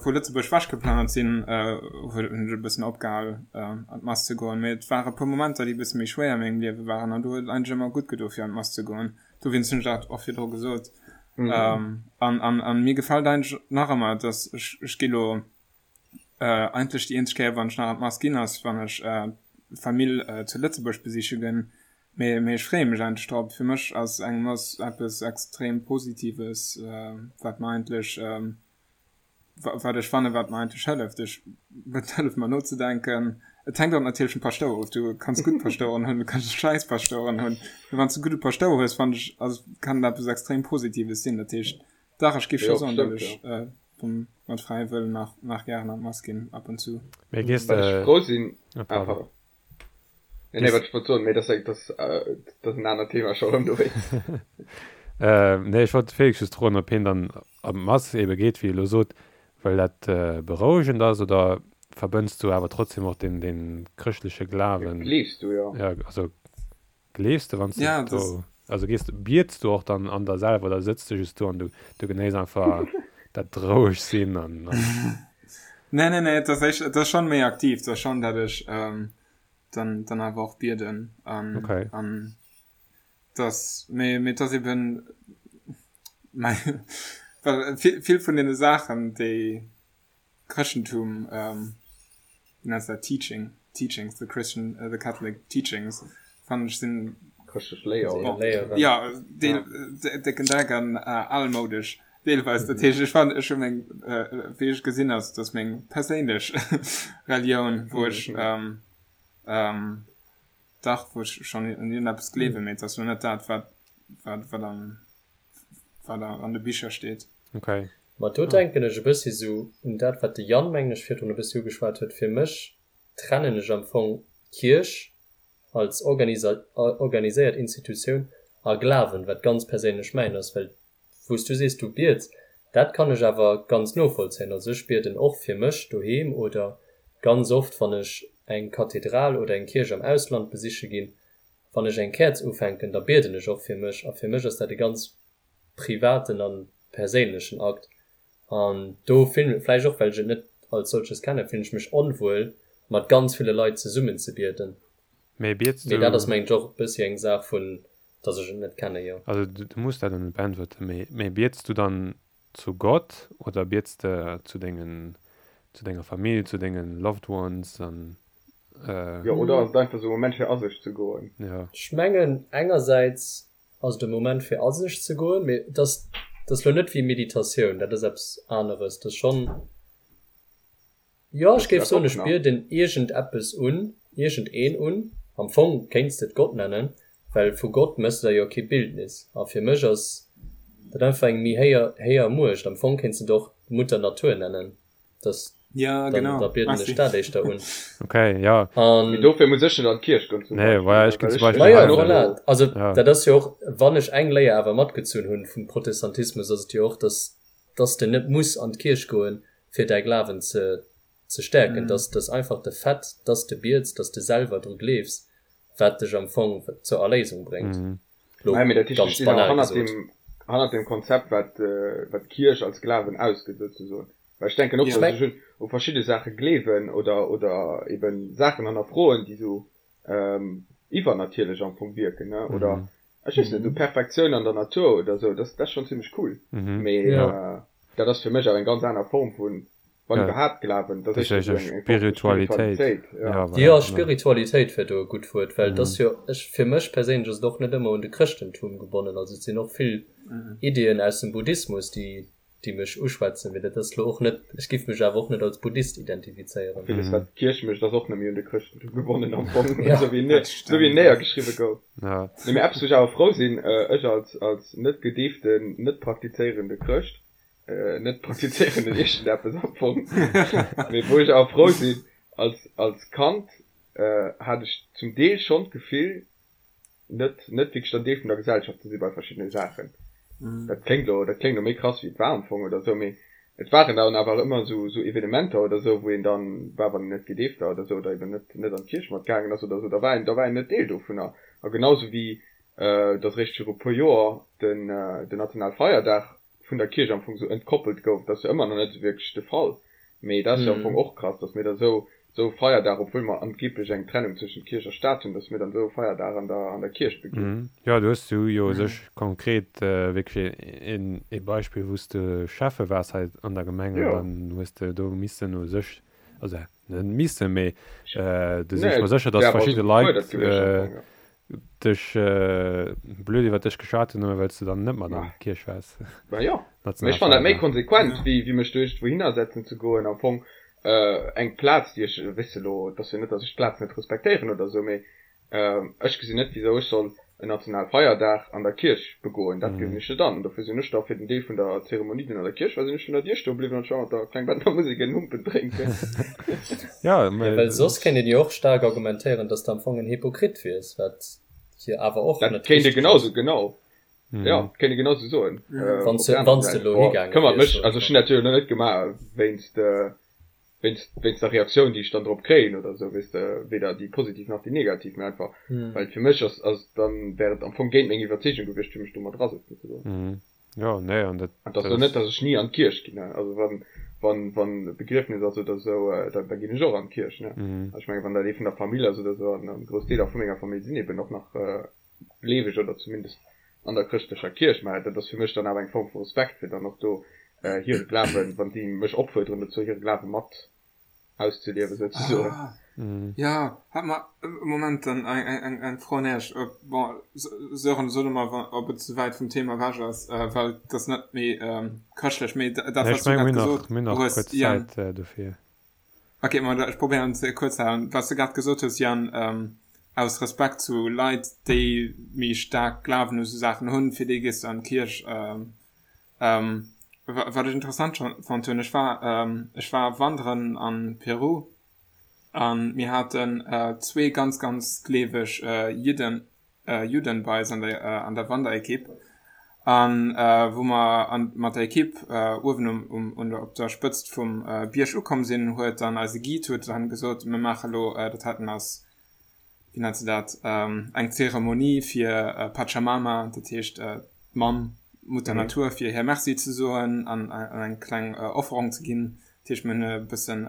vu Lëtzebuerg wech geplënnert sinn, hunn ech e bëssen opgehal an d'Mass ze goen. Mee et ware puer Momenter, déi e bësse méi schwéier a mengem Liewe waren an do huet et eigentlech ëmmer gutt gedo fir an d'Mass ze goen. Dowéinst hunn ech dat och virdru gesot. An an mir gefält eigentlech nach ëmmer, dass ech ech gi lo eigentlech déi eenzeg Kéier wann ech nach an d'Mass ginn ass, wann ech d'Famill zu Lëtzebuerg besiche ginn. Mee mee ech freeë mech eigentlech drop. Fir mech ass eng Mass eppes extrem Positives, wat mer eigentlech, wat ech fannen, wat mer eigentlech hëlleft. Ech, et hëlleft mer nozedenken. Et hänkt och natierlech vum Paschtouer of. Du kanns gutt Paschtoueren hunn, du kanns schäiss Paschtoueren hunn. Mee wann s du gudde Paschtouer hues, fannen ech, ass, kann et eppes extrem Positives sinn. Dat heescht, dach, ech géif scho soen, datt ech vum, mat fräiem Wëllen nach, nach gären an d'Mass ginn, ab und zu. Mee gees Wat ech de, frou sinn, ah ah pardon. pardon. Nee, nee, wat ech wollt soen, mee dat ass, dat ass en anert Thema scho erëm dowéinst. Nee, ech wollt de Félix just froen, ob hien dann an d'Mass ebe geet, wéi e elo sot, well dat berouegend ass, oder verbënns du awer trotzdem och deen, deen chrëschtleche Glawen? Gleefs du, jo. Ja, also gleefs de, wann s du Ja, das. do, also gees, biets du och dann an der selwer oder sëtz du just do an du, du genéiss einfach dat roueg sinn an, an. Nee, nee, nee, et ass éischt, et ass schonn méi aktiv, et ass schonn, dat ech dann, dann awer och bieden an, Okay. an dass, mee, mee et ass eben, mei, well vill, vill vun deene Saachen, déi Chrëschtentum, wéi nenns de dat, Teaching, Teachings, the Christian, the Catholic Teachings, fannen ech sinn, Chrëschtlech Léier, oder? Léieren. Ja, deel, décken Dreck an almoudesch deelweis. Dat heescht, ech fannen, ech hu meng, wéi ech gesinn ass, dass meng perséinlech Relioun, wou ech, dach, wou ech schonn un iergendeppes gleewen, mee et ass lo net dat, wat, wat, wat am, wat an de Bicher steet. Okay. Ma do denken ech e bëssi sou un dat, wat de Yann, mengen ech, virdrun e bëssi ugeschwat huet. Fir mech trennen ech am Fong Kierch als organiséiert Institutioun a Glawen, wat ganz perséinlech mäin ass, well wou s du sees, du biets, dat kann ech awer ganz novollzéien. Also ech bieden och fir mech doheem oder ganz oft, wann ech eng Kathedral oder eng Kierch am Ausland besiche ginn, wann ech eng Käerz ufänken, da bieden ech och fir mech a fir mech ass dat e ganz privaten a perséinlechen Akt. An do fillen, vläicht och well ech et net als solches kennen, fillen ech mech onwuel mat ganz ville Leit zesummen ze bieden. Mee biets Mee dat ass du, mengen ech och e bëssi eng Saach vun, dass ech et net kennen, jo. also du muss dat net beäntwerten, mee mee biets du dann zu Gott oder biets de zu dengen, zu denger Famill, zu dengen loved ones an Jo, oder ass et einfach esou e Moment fir a sech ze goen? Jo. Ech mengen engersäits ass et e Moment fir a sech ze goen, mee et ass, et ass lo net wéi Meditatioun, dat ass eppes aneres. Et ass schonn, jo ech géif soen, ech bieden iergend eppes un, iergend een un. Am Fong kéints de et Gott nennen, well vu Gott méchs de der jo kee Bildnis. A fir mech ass dat einfach eng méi héier, héier Muecht. Am Fong kéints de et och Mutter Natur nennen. Das, ja, dann, genau. da bieden ech dat éischter un. Okay, ja. An, Mee dofir muss ech net an d'Kierch goen zum Nee, Beispill, voilà, ech ginn well zum ech Beispill Ma ja, hei voilà. Also Ja. dat ass jo och, wann ech eng Léier awer matgezunn hunn vum Protestantismus, ass et jo och, dass, dass de net muss an d'Kierch goen, Fir däi Glawen ze ze stäerken. Dass dass einfach de Fait, dass de biets, dass de selwer dru gleefs, wat dech am Fong zur Erléisung bréngt. Lo Mä dat heescht, ech ganz stinn awer banal hannert gesot. deem, hannert deem Konzept, wat, wat d'Kierch als Glawen ausgëtt, souzesoen. Well ech denken och, Ech dass meng. ech un, u verschidde Saache gleewen oder, oder eben Saachen hannerfroen, déi sou iwwernatierlech am Fong wierken, ne, oder ech weess net, esou Perfektioun an der Natur oder sou, dat ass schonn zimmlech cool. Mee dat ass fir mech awer eng ganz aner Form vun, wann iwwerhaapt, Glawen. Dat ass éischter esou eng Form vu Spiritualitéit, jo. Jo, Spiritualitéit wär do e gutt Wuert, well et ass jo, ech, fir mech perséinlech ass et och net ëmmer un de Chrëschtentum gebonnen. Also et sinn och vill Iddien aus dem Buddhismus, déi déi mech uschwätzen, mee dat ass lo och net, ech giff mech awer och net als Buddhist identifizéieren. Villes wat d'Kierch mécht ass och net méi un de Chrëschtentum gebonnen am Fong, esou wéi en esou wéi en néiergeschriwwe gouf. Nee mee eppes wou ech awer frou sinn, ech als als net gedeeften, net praktizéierende Chrëscht, net praktizéierenden iergendeppes am Fong, mee wou ech awer frou sinn, als als Kand hat ech zum Deel schonn d'Gefill, net net wierklech dann Deel vun der Gesellschaft ze si bei verschiddene Saachen. Dat kléngt elo, dat kléngt elo méi krass wéi et war am Fong oder esou, mee et waren dann awer ëmmer esou esou Evenementer oder esou, wou een dann war, wann een net gedeeft war oder esou oder eben net net an d'Kierch mat gaangen ass oder esou, da war een da war een net Deel dovunner. A genau esou wéi datt eréischt viru puer Joer den den Nationalfeierdag vun der Kierch am Fong esou entkoppelt gouf, dat ass jo ëmmer nach net esou wierklech de Fall, mee dat ass jo am Fong och krass, datt mir da esou esou e Feierdag, obwuel mer angeblech eng Trennung zwëschent Kierch a Staat hunn, datt mir dann esou e Feierdag an der an der Kierch beginn. Jo, do hues du jo u sech konkret wierklech een ee Beispill, wou s de Schäffe waars hei an der Gemeng an dann hues de do missen u sech, also net missen, mee do sinn ech mer sécher, datt verschidde Leit dech blöd iwwer dech geschwat hunn, nëmme well s de dann net mat an d'Kierch waars. Bah jo, mee ech fannen dat méi konsequent, wéi wéi mech do iergendwou hinner setzen ze goen. Am Fong eng Plaz, déi ech, weess de elo, et ass jo net, datt ech d'Plaz net respektéieren oder esou, mee ech gesinn net, wisou ech soll en Nationalfeierdag an der Kierch begoen. Dat gesinn ech net an. Dofir sinn ech da fir den Deel vun der Zeremonie, deen an der Kierch war, sinn ech vun der Dier stoe bliwwen an ech war mat der Klengbettner Musek en Humpen drénken. Ja, Ja, well soss kéint een jo och staark argumentéieren, dass de am Fong en Hypokrit wiers, wat jo awer och Dat net kéint ee richteg genausou, ass. genau. Jo, kéint ee genausou soen. Wann Op s de, der anerer wann s de Säit, elo boah, higaange këmmert wiers, mech, soen also ech ech hunn mol. dat jo elo net gemaach wéinst, wéinst, wéinst der Reaktioun, déi ech dann drop kréien oder esou, weess de, weder déi positiv nach déi negativ, mä einfach, well et fir mech ass, ass dann wär et am Fong géint meng Iwwerzeegung gewiescht, fir mech do mat erasëtzen ze goen. Jo, nee, an dat, An et ass dat elo net, ass. datt ech ni an d'Kierch ginn, ne, also wann, wann, wann e Begriefnis ass oder esou, da, da ginn ech och an d'Kierch, ne. Also ech mengen, wann dat ee vun der Famill ass oder esou, an, an grouss Deeler vu menger Famill sinn eben och nach gleeweg oder zumindest an der chrëschtlecher Kierch, mä dat ass fir mech dann awer eng Form vu Respekt, fir dann och do hire Glawen, wann si mech opfuerderen dozou, hire Glawe mat auszeliewen souzesoen. Ah, ja, hat mer e Moment dann eng, eng Fro un Iech. Bon, Sören, so du mal, ob et ze wäit vum Thema ewech ass, well et ass net méi chrëschtlech, mee dat, Nee, wat ech s du menge grad mir hunn nach, gesot mir hunn nach hues, kuerz Yann. Zäit dofir. Ok, ma ech probéieren ze kuerz ze halen. Wat s de grad gesot hues, Yann, aus Respekt zu Leit, déi méi staark Glawen u sou Saachen hunn, fir déi gees du an d'Kierch. Wat ech interessant fonnt hunn, ech war, ech war wanderen an Peru an mir haten zwee ganz, ganz gleeweg Jidden, Judden bei eis an der, an der Wanderekipp an wou mer an, mat der Ekipp uewen um, um, un der, op der Spëtzt vum Bierg ukomm sinn, huet dann eise Guide huet dann gesot, mir maache lo, dat heiten ass, wéi nennt se dat, eng Zeremonie fir Pachamama, dat heescht d'Mamm, Mutter Natur, fir hir Merci ze soen an eng kleng Offerung ze ginn. Dat heescht, mir hunn e bëssen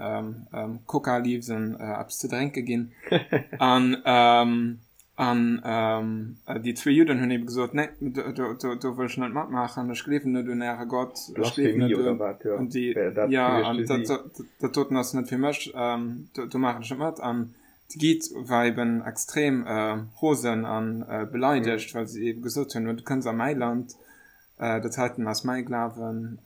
Coca Leaves an eppes ze drénke ginn. An an déi zwee Judden hunn ebe gesot, Nee, do do wëll ech net matmaachen, ech gleewen net un äre Gott, ech gleewen Blasphemie net oder un wat, jo, un déi, wär dat jo, gewiescht an fir dat si. dat doten ass net fir mech, do do maachen ech net mat. An de Guide war eben extrem rosen a beleidegt, well si ebe gesot hunn, Du kënns a mäi Land, Dat heiten ass mäi Glawen,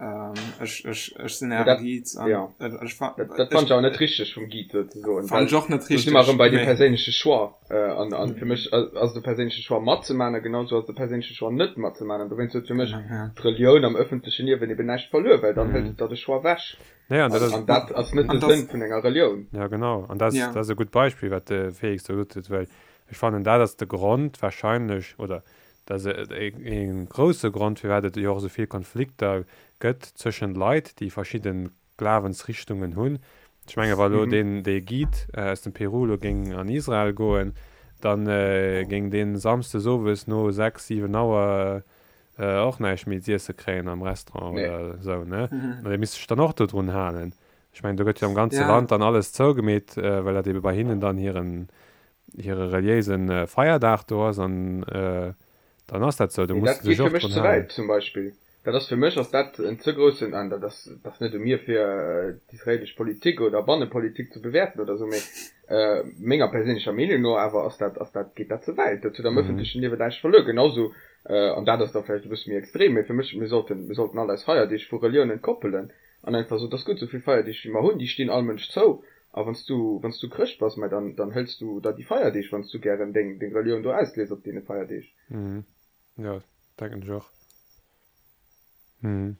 ech, ech, ech sinn äre Guide an ja. ech fa-. Dat, dat fand ech awer net richteg vum Guide sou ze soen. Fand ech och net richteg. Do si mer erëm bei dem perséinleche Choix. An, an fir mech ass et e perséinleche Choix matzemaachen a genau sou ass et e perséinleche Choix net matzemaachen. An dowéinst huet fir mech d'Relioun am ëffentleche Liewen eben näischt verluer, well dann hëlt et der de Choix ewech. Nee, an dat ass. An dat ass net de Sënn vun enger Relioun. Ja, genau. An dat ass, dat ass e gutt Beispill, wat de Félix do gesot huet, well ech fannen, dat ass de Grond wahrscheinlech, oder Dat ass e grousse Grond, firwat et jo och esou vill Konflikter gëtt zwëschen Leit, déi verschidde Glawensrichtungen hunn. Ech menge wa lo deen dee Guide aus dem Peru lo géing an Israel goen, da géing dee samsdes owes no 6, 7 Auer och näischt méi z'iesse kréien am Restaurant oder esou, ne? An dee misst sech dann och dodrun halen. Ech mengen, do gëtt jo am ganze Land dann alles zougemeet, well dat ebe bei hinnen dann hiren hire reliéise Feierdag do ass an dann ass dat esou, do Mee muss dat de geet sech fir och mech drun ze halen. wäit zum Beispill. Dat ass fir mech ass dat en ze groussen, an dat ass dat ass net u mir fir d'israelesch Politik oder Bannepolitik ze bewäerten oder esou, mee menger perséinlecher Meenung no awer ass dat ass dat geet dat ze wäit. Dat huet am ëffentlechen Liewen näischt verluer. Genausou, an dat ass da vläicht e bësse méi extrem, mee fir mech, mir sollten mir sollten all eis Feierdeeg vu Reliounen koppelen an einfach soen, et ass gutt, esou vill Feierdeeg wéi mer hunn, déi stinn all Mënsch zou A wann s du, wann s du Chrëscht bass, mä dann, dann hëls du der déi Feierdeeg, wann s du gären deng, deng Relioun do auslies op deene Feierdeeg. Mhm. Jo, denken ech och. Mhm.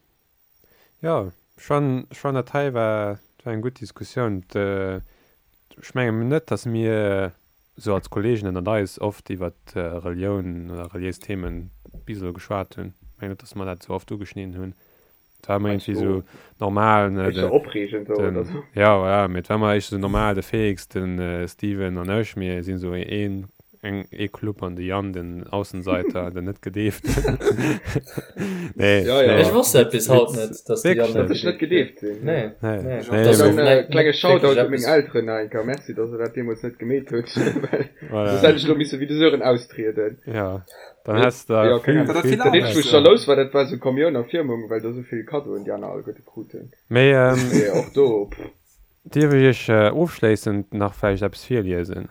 Jo, ech fannen, ech fannen dat hei war, dat war eng gutt Diskussioun. Ech mengen net, datt mir esou als Kollegen ënnert eis oft iwwert Relioun oder reliéis Themen bis elo geschwat hunn. Ech mengen net, datt mer dat esou oft ugeschnidden hunn. Et war ëmmer iergendwéi esou normal, ne, Éischter opreegend esou oder sou. Ja, voilà, mee et war ëmmer éischter esou normal, de Félix, de Steven an ech, mir sinn esou een, eng, ee Club an de Yann, den Aussenseiter, den net Gedeeften. Nee, Ja, ja. Ech wosst dat bis haut net, dass de Wierklech Yann net? net Dass ech net gedeeft gedeeft sinn. Nee, Nee, nee. nee, Dat ass mee och Dann net klenge wierklech Shoutout u meng eppes. Elteren nach eng Kéier. Merci, dass der dat deemools net gemeet hutt, well Voilà. soss hätt ech elo misse wéi de Sören austrieden. Ja. Dann häss de Ja, keng vill, Ahnung. Dat vill vill Dat eenzegt, wou ech Aarbecht. jalous war, dat war esou Kommioun a Firmung, well do esou vill Kaddoen déi aner alleguerte kruten. Mee Mee och do, pff. dierf ech Iech ofschléissend nach vläicht eppes virliesen?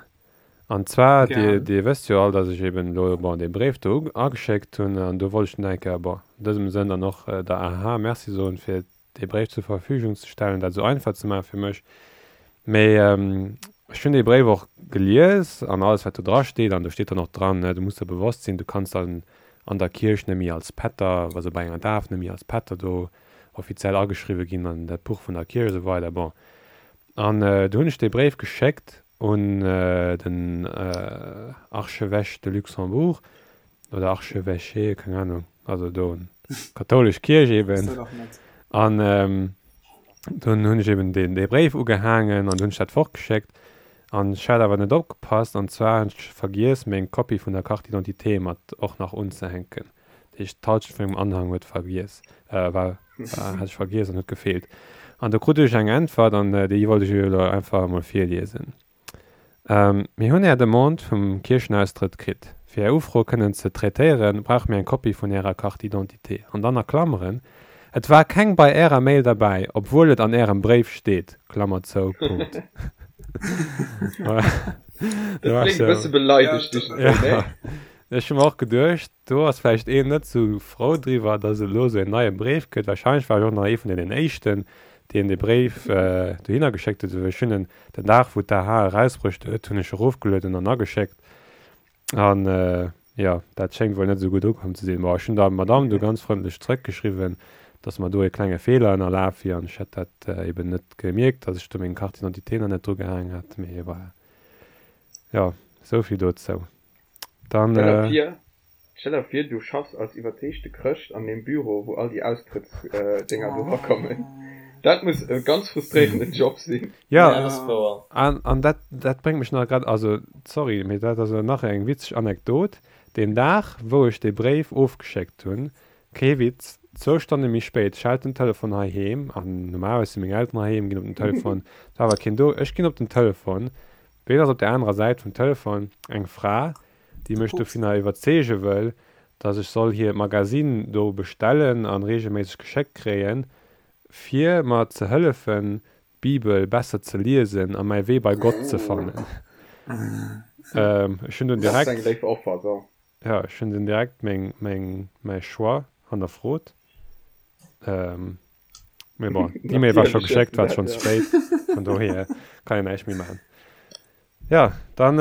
An zwar, Dir, Gären. Dir wësst jo all, dass ech eben elo, bon, dee Bréif do ageschéckt hunn an do wollt ech dann eng Kéier, bon, an dësem Sënn dann och der AHA Merci soen, fir dee Bréif zur Verfügung ze stellen, dat esou einfach ze maache fir mech. Mee ech hunn dee Bréif och gelies an alles wat do dra steet, an do steet dann och dran, du muss der bewosst sinn, du kanns dann an der Kierch net méi als Pätter, also bei enger Daf net méi als Pätter do offiziell ageschriwwe ginn an dat Buch vun der Kierch esou weider. Bon, an du hunn ech dee Bréif geschéckt un den Archevêche de Luxembourg, oder Archevêché, keng Ahnung, also do kathoulesch Kierch eben. An dunn hunn ech eben deen dee Bréif ugehaangen an hunn ech dat fortgeschéckt. An ech hat awer net opgepasst, an zwar hunn ech vergiess meng Kopie vun der Carte d'identité mat och nach unzehänken. Dat heescht d'Halschent vun mengem Anhang huet vergiess, war, war, hat ech vergiess an huet gefeelt. An do krut ech eng Äntwert an déi wollt ech iech elo einfach emol virliesen. Mir hunn Är Demande vum Kierchenaustrëtt kritt. Fir Är Ufro kënnen ze traitéieren, brauche mir eng Kopie vun Ärer Carte d'identité. An dann a Klammeren, Et war keng bei Ärer Mail derbäi, obwuel et an Ärem Bréif steet. Klammer zou. Punkt. Dat kléngt e bësse beleidegt, iergendwéi, ne? Ech hu mer och geduecht, Do ass vläicht een net sou frou driwwer, dass et elo sou een neie Bréif gëtt. Wahrscheinlech war ech och nach ee vun deenen éischten, deen dee Bréif dohinner geschéckt huet. Ech hunn en den Dag, wou d'AH erausbruecht huet, hunn ech erofgelueden an ageschéckt. An jo, dat schéngt wuel net esou gutt ukomm ze sinn. Bon, ech hunn der Madamm du ganz frëndlech zrëckgeschriwwen, dass mer do ee klenge Feeler ënnerlaf wier an ech hätt dat eben net gemierkt, dass ech do meng Carte d'identité nach net drugehaang hat. Mee voilà, jo, esou vill dozou. Dann, Stell der vir, stell der vir, du schaffs als iwwerzeegte Chrëscht an deem Büro, wou all déi Austrëttsdénger do erakommen. Dat muss e ganz frustréierenden Job sinn. Ja, Ja, dat ass wouer. an, an dat, dat bréngt mech nach grad, also, sorry, mee dat ass elo nach eng witzeg Anekdot, Deen Dag, wou ech dee Bréif ofgeschéckt hunn, kee Witz, zwou Stonne méi spéit schellt den Telefon heiheem, an normalerweis si meng Elteren heiheem, ginn op den Telefon, et war awer keen do, ech ginn op den Telefon, Ween ass op der anerer Säit vum Telefon? Eng Fra, déi mech dovunner iwwerzeege wëll, dass ech soll hiert Magazine do bestellen an regelméisseg geschéckt kréien, fir mer ze hëllefen, d'Bibel besser ze liesen a mäi Wee bei Gott ze fannen. Ech hunn dunn Dat ass eng direkt, léif Offer, so. jo, ech hunn dunn direkt meng, meng, mäi Choix hannerfrot. Mee bon, d'E-Mail war scho Natierlech hues geschéckt, du war dat, schonn ze ja. spéit, vun dohier kann een näischt méi maachen. Jo, dann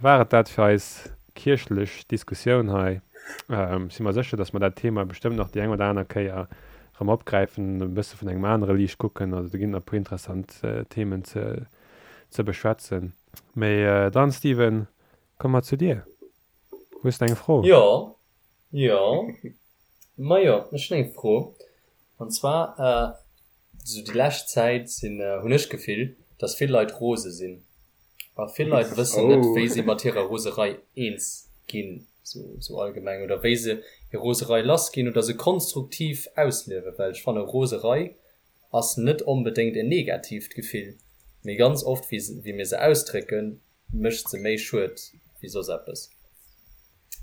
war et dat fir eis kierchlech Diskussioun hei. Ech si mer sécher, datt mer dat Thema bestëmmt nach déi eng oder aner Kéier erëm opgräifen, e bësse vun engem anere Liicht kucken. Also do ginn nach e puer interessant Themen ze ze beschwätzen. Mee dann, Steven, komme mer zu dir. Hues de eng Fro? Jo, jo. Majo, ech hunn eng Fro. An zwar. Sou déi lescht Zäit sinn, hunn ech d'Gefill, dass vill Leit rose sinn. A vill Leit wëssen net, wéi si mat hirer Roserei eens ginn, sou allgemeng, oder wéi se hir Roserei lass ginn oder se konstruktiv ausliewen. Well ech fanne Roserei ass net onbedéngt en negatiivt Gefill, mee ganz oft wéi mir se ausdrécken, mécht se méi Schued wéi soss eppes.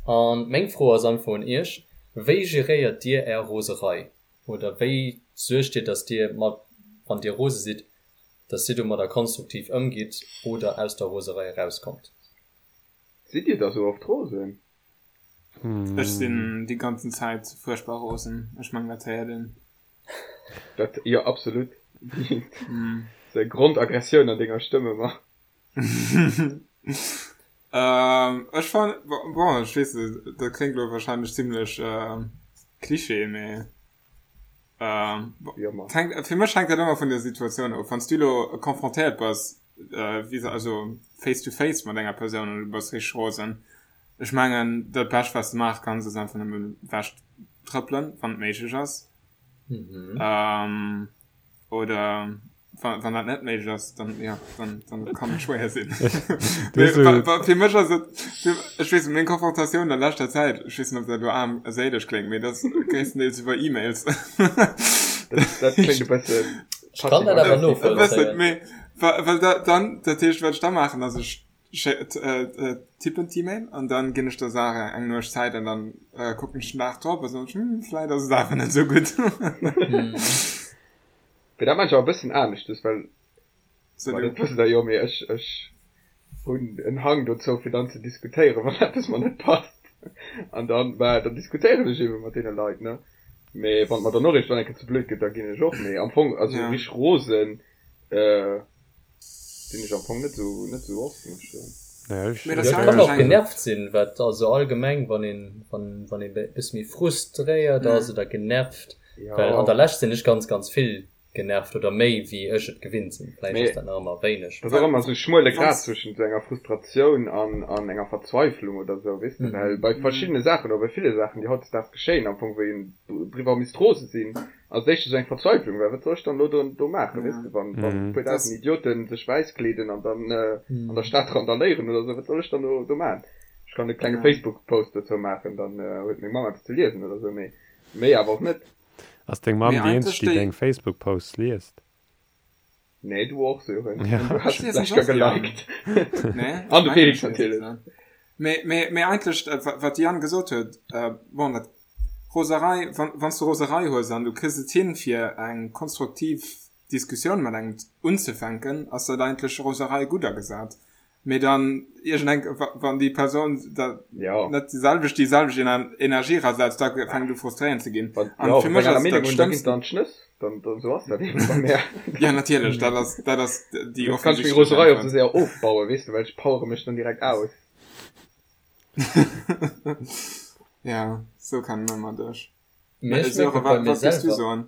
A meng Fro ass einfach un iech, Wéi geréiert dir är Roserei? Oder wéi suergt dir, dass dir mat, wann dir rose sidd, dass dir domadder konstruktiv ëmgitt oder aus der Roserei erauskommt? Sidd dir da sou oft rosen? Ech sinn déi ganzen Zäit fuerchtbar rosen. Ech mengen dat héiert een. Dat, jo absolut. Sou eng Grondaggressioun an denger Stëmm ëmmer. Ech fannen, bon, ech weess net, dat kléngt elo wahrscheinlech zimlech Klischee, mee fir mech hänkt dat ëmmer vun der Situatioun of. Wann s du elo confrontéiert bass, also face to face mat enger Persoun an du bass richteg rosen, ech mengen dat Bescht wat s de maache kanns ass einfach nëmmen ewech trëppelen, wann et méiglech ass. Oder wann, wann dat net méiglech ass, dann, ja, dann, dann kann et schwéier sinn. Fir mech ass et, ech weess net, meng Konfrontatioun an leschter Zäit, ech weess net, ob dat elo aarm a séileg kléngt, mee dat ass gréisstendeels iwwer E-Mails. Dat, dat kléngt e bëssen. Ech kann dat awer novollzéien. Mee, well da, dann, dat heescht, wat ech da maachen, ass ech tippen d'E-Mail an dann ginn ech der Saach eng Nuecht Zäit an dann kucken ech den Dag drop a soen ech, hm, vläit ass et awer net esou gutt. Mee dat maachen ech awer e bëssen aneschtes, well, ma dat wësst der jo, mee ech, ech hunn en Hang dozou fir dann ze diskutéieren, wann eppes mer net passt. An dann, bah, dann diskutéieren ech ebe mat deene Leit, ne. Mee wann et mer dann och iergendwann eng Kéier ze blöd gëtt, da ginn ech och. Mee am Fong, also richteg rosen, Sinn ech am Fong net sou net sou oft muss ech soen. Naja, ech, Mee dat kann och genervt sinn, wat also allgemeng wann een wann wann ee bësse méi frustréiert ass oder genervt, well an der Lescht sinn ech ganz ganz vill genervt oder méi wéi ech et gewinnt sinn. Vläicht ass dat nach ëmmer wéineg. Dat ass och ëmmer sou e schmuele Grad zwëschent sou enger Frustratioun an an enger Verzweiflung oder sou, weess de, well bei verschiddene Saachen oder bei ville Saachen déi hautdesdaags geschéien am Fong wou een driwwer misst rose sinn, Als éischt esou eng Verzweiflung, well wat soll ech dann elo do, do maachen, weess de, wann, wann e puer dausend Idioten sech wäiss kleeden an dann an der Stad randaléieren oder esou, wat soll ech dann do, do maachen? Ech kann e klenge Facebook-Post dozou maachen, dann huet meng Mamm eppes ze liesen oder esou, mee méi awer och net. Ass deng Mamm déi eenzeg, déi deng Facebook-Posts liest? Nee, du och, Sören. Ja. Du hast es vielleicht gar geliked. Nee, An de Felix natierlech. Mee, mee, mee eigentlech, äh, wat de Yann gesot huet, äh, bon, dat Roserei, wann, wann s du Roserei hues an du kriss et hin, fir eng konstruktiv Diskussioun mat engem unzefänken, ass dat eigentlech Roserei gutt agesat. Mee dann iergendeng, wann déi Persoun da net déi selwecht, déi selwecht Energie erasetzt, da fänkt u frustréierend ze ginn. An fir mech ass dat Schlëmmst. Dann d'Schnëss, dann, dann sou ass dat eben bei mär. Ja, natierlech, dat ass, dat ass déi offensichtlech. Kann ech meng Roserei och sou séier ofbauen, weess de, well ech powere mech dann direkt aus. Ja, sou kennen mer dech. Mee ech mierke bei mir selwer.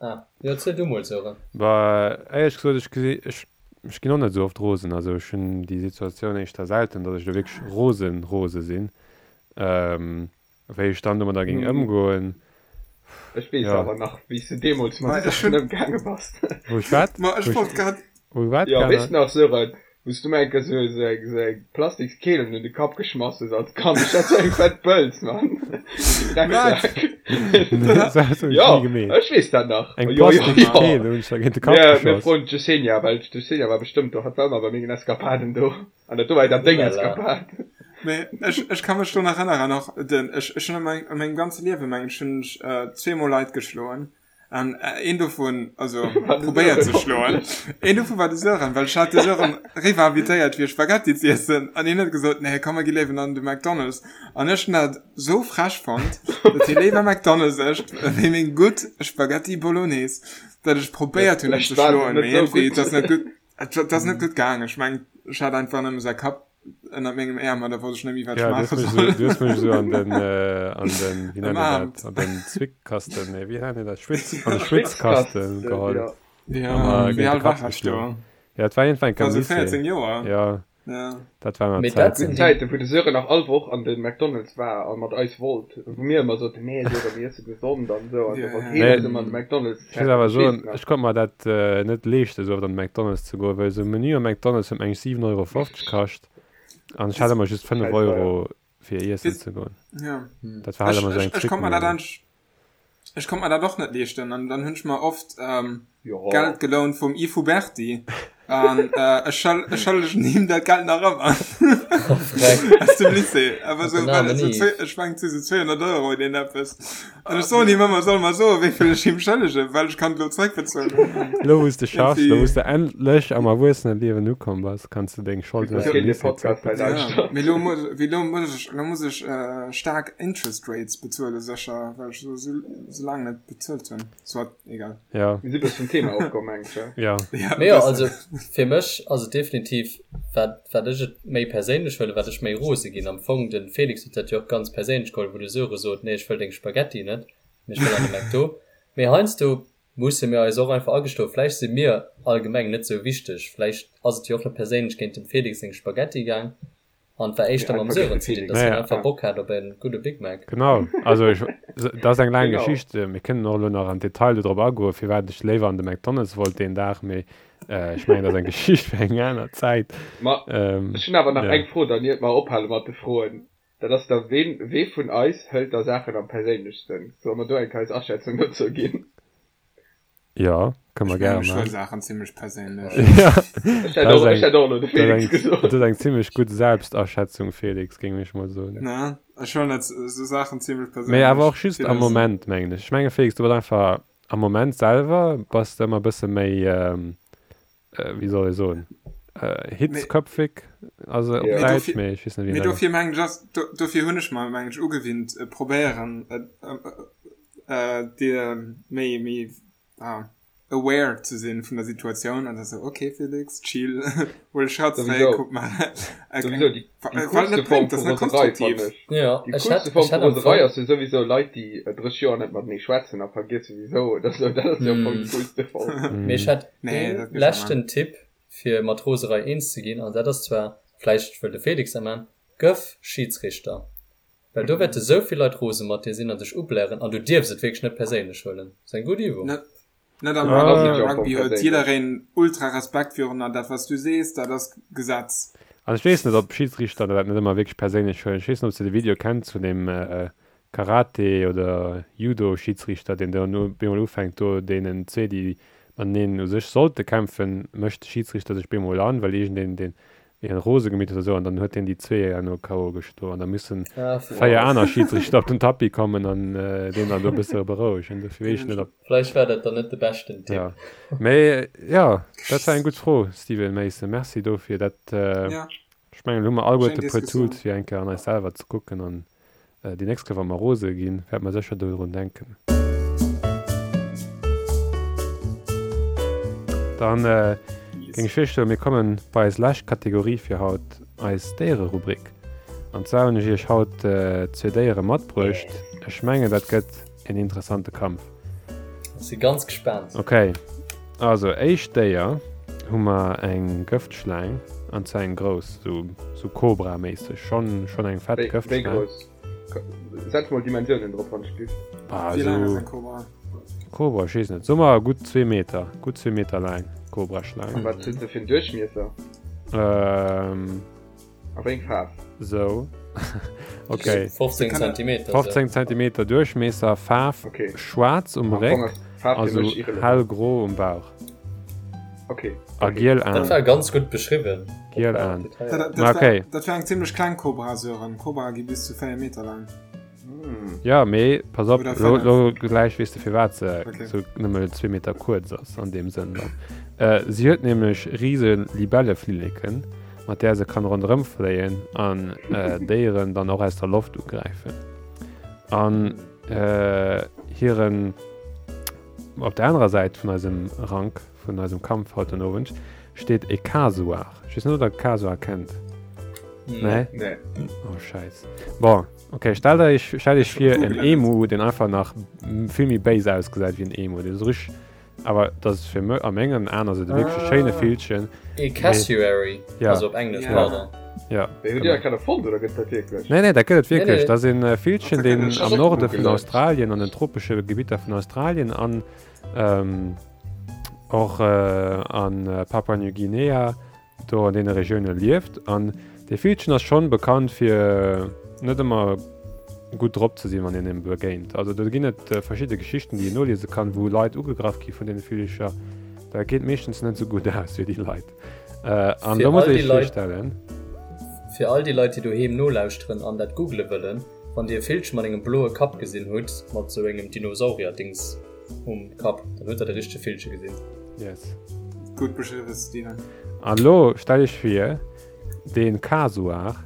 Ah, jo, erziel du mol, Sören. Bah, éierlech gesot, ech gesi, ech, ech ginn och net esou oft rosen. Also ech hunn déi Situatioun éischter selten, datt ech elo wierklech rosen, rose sinn. Wéi ech dann domadder géing ëmgoen, Ech weess jo. awer nach, wéi s du deemools mat Saachen ëmgaange bass. Wou ech wat? Ma ech wollt grad. Wou wat Jo, weess nach, Sören, wou s du mer eng Kéier sou sou eng sou eng Plastikskeel un de Kapp geschmass hues als Kand. Ech hat sou eng fett Bëlz, Mann. Drecksak. Dat hues du Jo, ni gemeet. ech weess dat nach. Eng Jo, jo, jo. Plastikskeel hunn ech der géint de Kapp Mir, mir geschoss. froen d'Yesenia, well d'Yesenia war bestëmmt do. Hatt war ëmmer bei mengen Eskapaden do. An dat do war dat deng Eskapad. Mee ech, ech ka mech do nach erënneren, och den, ech, ech hunn a meng, a mengem ganze Liewe, mengen ech, hunn ech zweemol Leit geschloen. An een dovun, also probéiert ze schloen, een dovun war de Sören, well ech hat de Sören riwwer invitéiert fir Spaghetti z'iessen an hien huet gesot, nee komm mer gi léiwen an de McDonald's. An ech hunn dat sou frech fonnt, datt hie léiwer McDonald's ëscht wéi meng gutt Spaghetti Bolognese, datt ech probéiert hunn en ze schloen, mee iergendwéi, et ass net gutt, et ass net gutt gaang. Ech mengen, ech hat einfach nëmme säi Kapp ënnert mengem Äerm an da wosst ech net méi wat ech Ja, du hues maache mech soll. esou, du hues mech esou an den, äh, an den, wéi nennt een Ëmarmt. dat, an den Zwickkasten, nee, wéi nennt een dat, Schwitz, an de Ja. Dat war Mee dat sinn Zäiten, wou de Sören nach all Woch an de McDonald's war a mat eis wollt, wou mir ëmmer soten, nee Sören, mir iesse gesond an esou, an da wollt heen eis ëmmer an de McDonald's Ech muss awer soen, ech konnt mer dat net leeschten, esou oft an de McDonald's ze goen, well esou e Menü am McDonald's huet meng ech 7,50 Euro kascht an ech hat ëmmer just 5 Euro fir iessen ze goen. Ja. Dat war halt ëmmer esou eng Ech konnt mer dat Ech konnt mer dat och net leeschten an dann hunn ech mer oft ähm, jo. Geld gelount vum Yves Huberti an äh, ech schëll, ech schëllegen him dat Geld nach ëmmer. Aus dem Lycée. Awer so, well et so zwee, ech mengen et si so 200 Euro oder een eppes. An ech soen him ëmmer, soll mer soen, wéi vill ech him schëllegen, well ech kann et lo zréckbezuelen. Lo wou s de schaffs, lo wou s de endlech am Erwuesseneliewen ukomm bass, kanns de deng Scholden aus dem Lycée zréckbezuelen. Ja, mee lo muss, wéi lo muss ech, lo muss ech äh, staark Interest Rates bezuelen, sécher, well ech sou, sou laang net bezuelt hunn. Soit, egal. Ja. Mir si bëssen vum Thema ofkomm, mengen ech, ja? Ja, Mee jo, also fir mech ass et definitiv, wat, wat ech et méi perséinlech huelen, wat ech méi rose ginn. Am Fong, de Felix huet dat jo och ganz perséinlech geholl, wou de Söre sot, nee, ech wëll deng Spaghetti net, mee ech wëll an de McDo. Mee heiansdo musse mir eis och einfach agestoen, vläicht si mir allgemeng net sou wichteg, vläicht ass et jo och net perséinlech géint dem Felix seng Spaghetti gaang, An et war éischter mam Sören ze dinn, dass hien einfach Bock hat op en gudde Big Mac. Genau, also ech, dat ass eng laang Geschicht, mir kënnen och elo nach am Detail do drop agoen, firwat ech léiwer an de McDonald's wollt deen Dag, mee ech mengen, dat ass eng Geschicht fir eng aner Zäit. Ma ech hunn awer nach eng Fro dann, iert mer ophale mat de Froen, dat ass da, ween, wee vun eis hëlt da Saachen am perséinlechsten? Solle mer do eng Kéier eis Aschätzung dozou ginn? Jo, kënne mer Ech gäre mengen, ech huele maachen. Saachen zimmlech perséinlech. Ja, Ech hätt dat ass och, ech eng, hätt och elo de dat Felix eng, gesot. dat ass eng zimmlech gutt Selbstaschätzung, Felix, géing ech mol soen. Ne, ech huelen dat esou Saachen zimmlech Mee awer perséinlech. och just am Villes. Moment, mengen ech. Ech menge Felix, du bass einfach am Moment selwer bass de ëmmer e bësse méi, wéi soll ee soen, hitzköpfig, also op Ja. Mee Däitsch, dofir, mee ech weess net, wéi mee een dat. dofir mengen ech ass, do, dofir hunn ech mer, mengen ech, ugewinnt, probéieren, dir méi, méi, ah, aware ze sinn vun der Situatioun an da sou, okay Felix, chill, huel e Schratt zeréck, kuck mal. Souwisou, déi, déi Well coolste net Form bréngt, vu dat ass net Roserei konstruktiv. fannen ech. Ja, Déi ech hätt, coolste Form ech vu hätt am Roserei Fong. ass jo souwisou Leit, déi 30 Joer net matenee schwätzen a vergiesse wisou oder sou. Dat ass jo am Fong déi coolste Form. Mee ech hätt Nee, ee dat geet schon leschten Tipp fir mat Roserei eens ze ginn, an dat ass zwar, vläicht wëll de Felix dat man, Gëff Schidsrichter. Well do wäerte sou vill Leit rose mat dir sinn a sech ublären an du dierfs et wierklech net perséinlech huelen. Ass eng gutt Übung. Net, net am Dann ass Rugby. et jo Am am Fong Rugby huet perséinlech. jiddereen ultra Respekt virun an dat wat s du sees, dat ass Gesetz. An ech weess net, ob Schidsrichter dat net ëmmer wierklech perséinlech huelen. Ech weess net, ob s de de Video kenns vun deem Karate oder Judo-Schidsrichter, deen do bemol ufänkt, do deenen zwee, déi mateneen u sech sollte kämpfen, mécht de Schidsrichter sech bemol an, well iergendeen deen hien rose gemeet huet oder sou, an dann huet hien déi zwee herno KO geschloen an da mussen 4 aner Schidsrichter op den Tapis kommen an deen dann do e bësse berouegen. Dofir weess ech net, ob. Vläicht war dat dann net de beschten Tipp. Jo, mee jo, dat war eng gutt Fro, Steven Mason. Merci dofir. Dat, ech mengen, elo hu mer alleguerte e puer Tools, fir eng Kéier an eis selwer ze kucken an Déi nächst Kéier wa mer rose ginn, wäerte mer sécher dodrun denken. Dann géing ech virschloen, mir kommen bei eis lescht Kategorie fir haut, eis Déiererubrik. An zwar hunn ech iech haut zwee Déiere matbruecht. Ech mengen, dat gëtt en interessante Kampf. Ech si ganz gespaant. Ok, also éischt Déier hu mer eng Gëftschlaang, an zwar eng grouss, sou sou Kobra-méisseg, schonn schonn eng fett Wéi, wéi Gëftschlaang. grouss? Setz mol Dimensiounen drop, wann ech giff. Bah, Wéi laang ass sou eng Kobra? Kobra, ech weess net, soe mer gutt zwee Meter, gutt zwee Meter laang Kobraschlaang. An wat huet se fir en Duerchmiesser? Ähm. A wéi eng Faarf? Sou. Okay. 15 Zentimeter. 15 Zentimeter Duerchmiesser, Faarf okay. schwaarz um Réck, also hellgro um Bauch. Okay. A giel Aen. Dat war ganz gutt beschriwwen. Giel Aen. Dat, dat, dat, okay. war, dat war eng zimmlech kleng Kobra, Sören. Kobra gi bis zu 4 Meter laang. Ja, mee pass op, lo, lo gläich weess de firwat se okay. sou nëmme zwee Meter kuerz ass an deem Sënn dann. Äh, si huet nämlech rise Libelleflilleken, mat där se kann ronderëm fléien an äh, Déieren dann och aus der Loft ugräifen. An äh, hiren op der anerer Säit vun eisem Rank, vun eisem Kampf haut den Owend, steet e Kasuar. Ech weess net, ob der Kasuar kennt. Nee? Nee. Oh, scheiß. Bon, okay, stellt euch, stellt euch vir en Emu, den einfach nach vill méi béis ausgesäit wéi en Emu. Deen esou richteg. Awer dat ass fir mech, a mengen Aen ass et e wierklech schéine Villchen. E Cassowary, also op Englesch, pardon. Ja. Mee hutt Dir dat grad erfonnt oder gëtt dat wierklech? Nee, nee, dat gëtt et wierklech. Dat ass e Villchen, deen am Norde vun Australien, an den tropesche Gebitter vun Australien an och a Papua New Guinea, do an deene Regioune lieft. An dee Villchen ass schonn bekannt fir net ëmmer gutt drop ze sinn, wann een him begéint. Also do ginn et verschidde Geschichten, déi een noliese kann, wou Leit ugegraff gi vun deene Villecher. Dat geet meeschtens net esou gutt aus fir déi Leit. An do muss ee sech virstellen. Fir all déi Leit, déi doheem nolauschteren an dat googele wëllen, Wann Dir e Villche mat engem bloe Kapp gesinn hutt, mat esou engem Dinosaurier-Dings um Kapp, dann hutt Der de richtege Villche gesinn. Yes. Gutt beschriwwen, Steven. An elo stell iech vir, dee Kasuar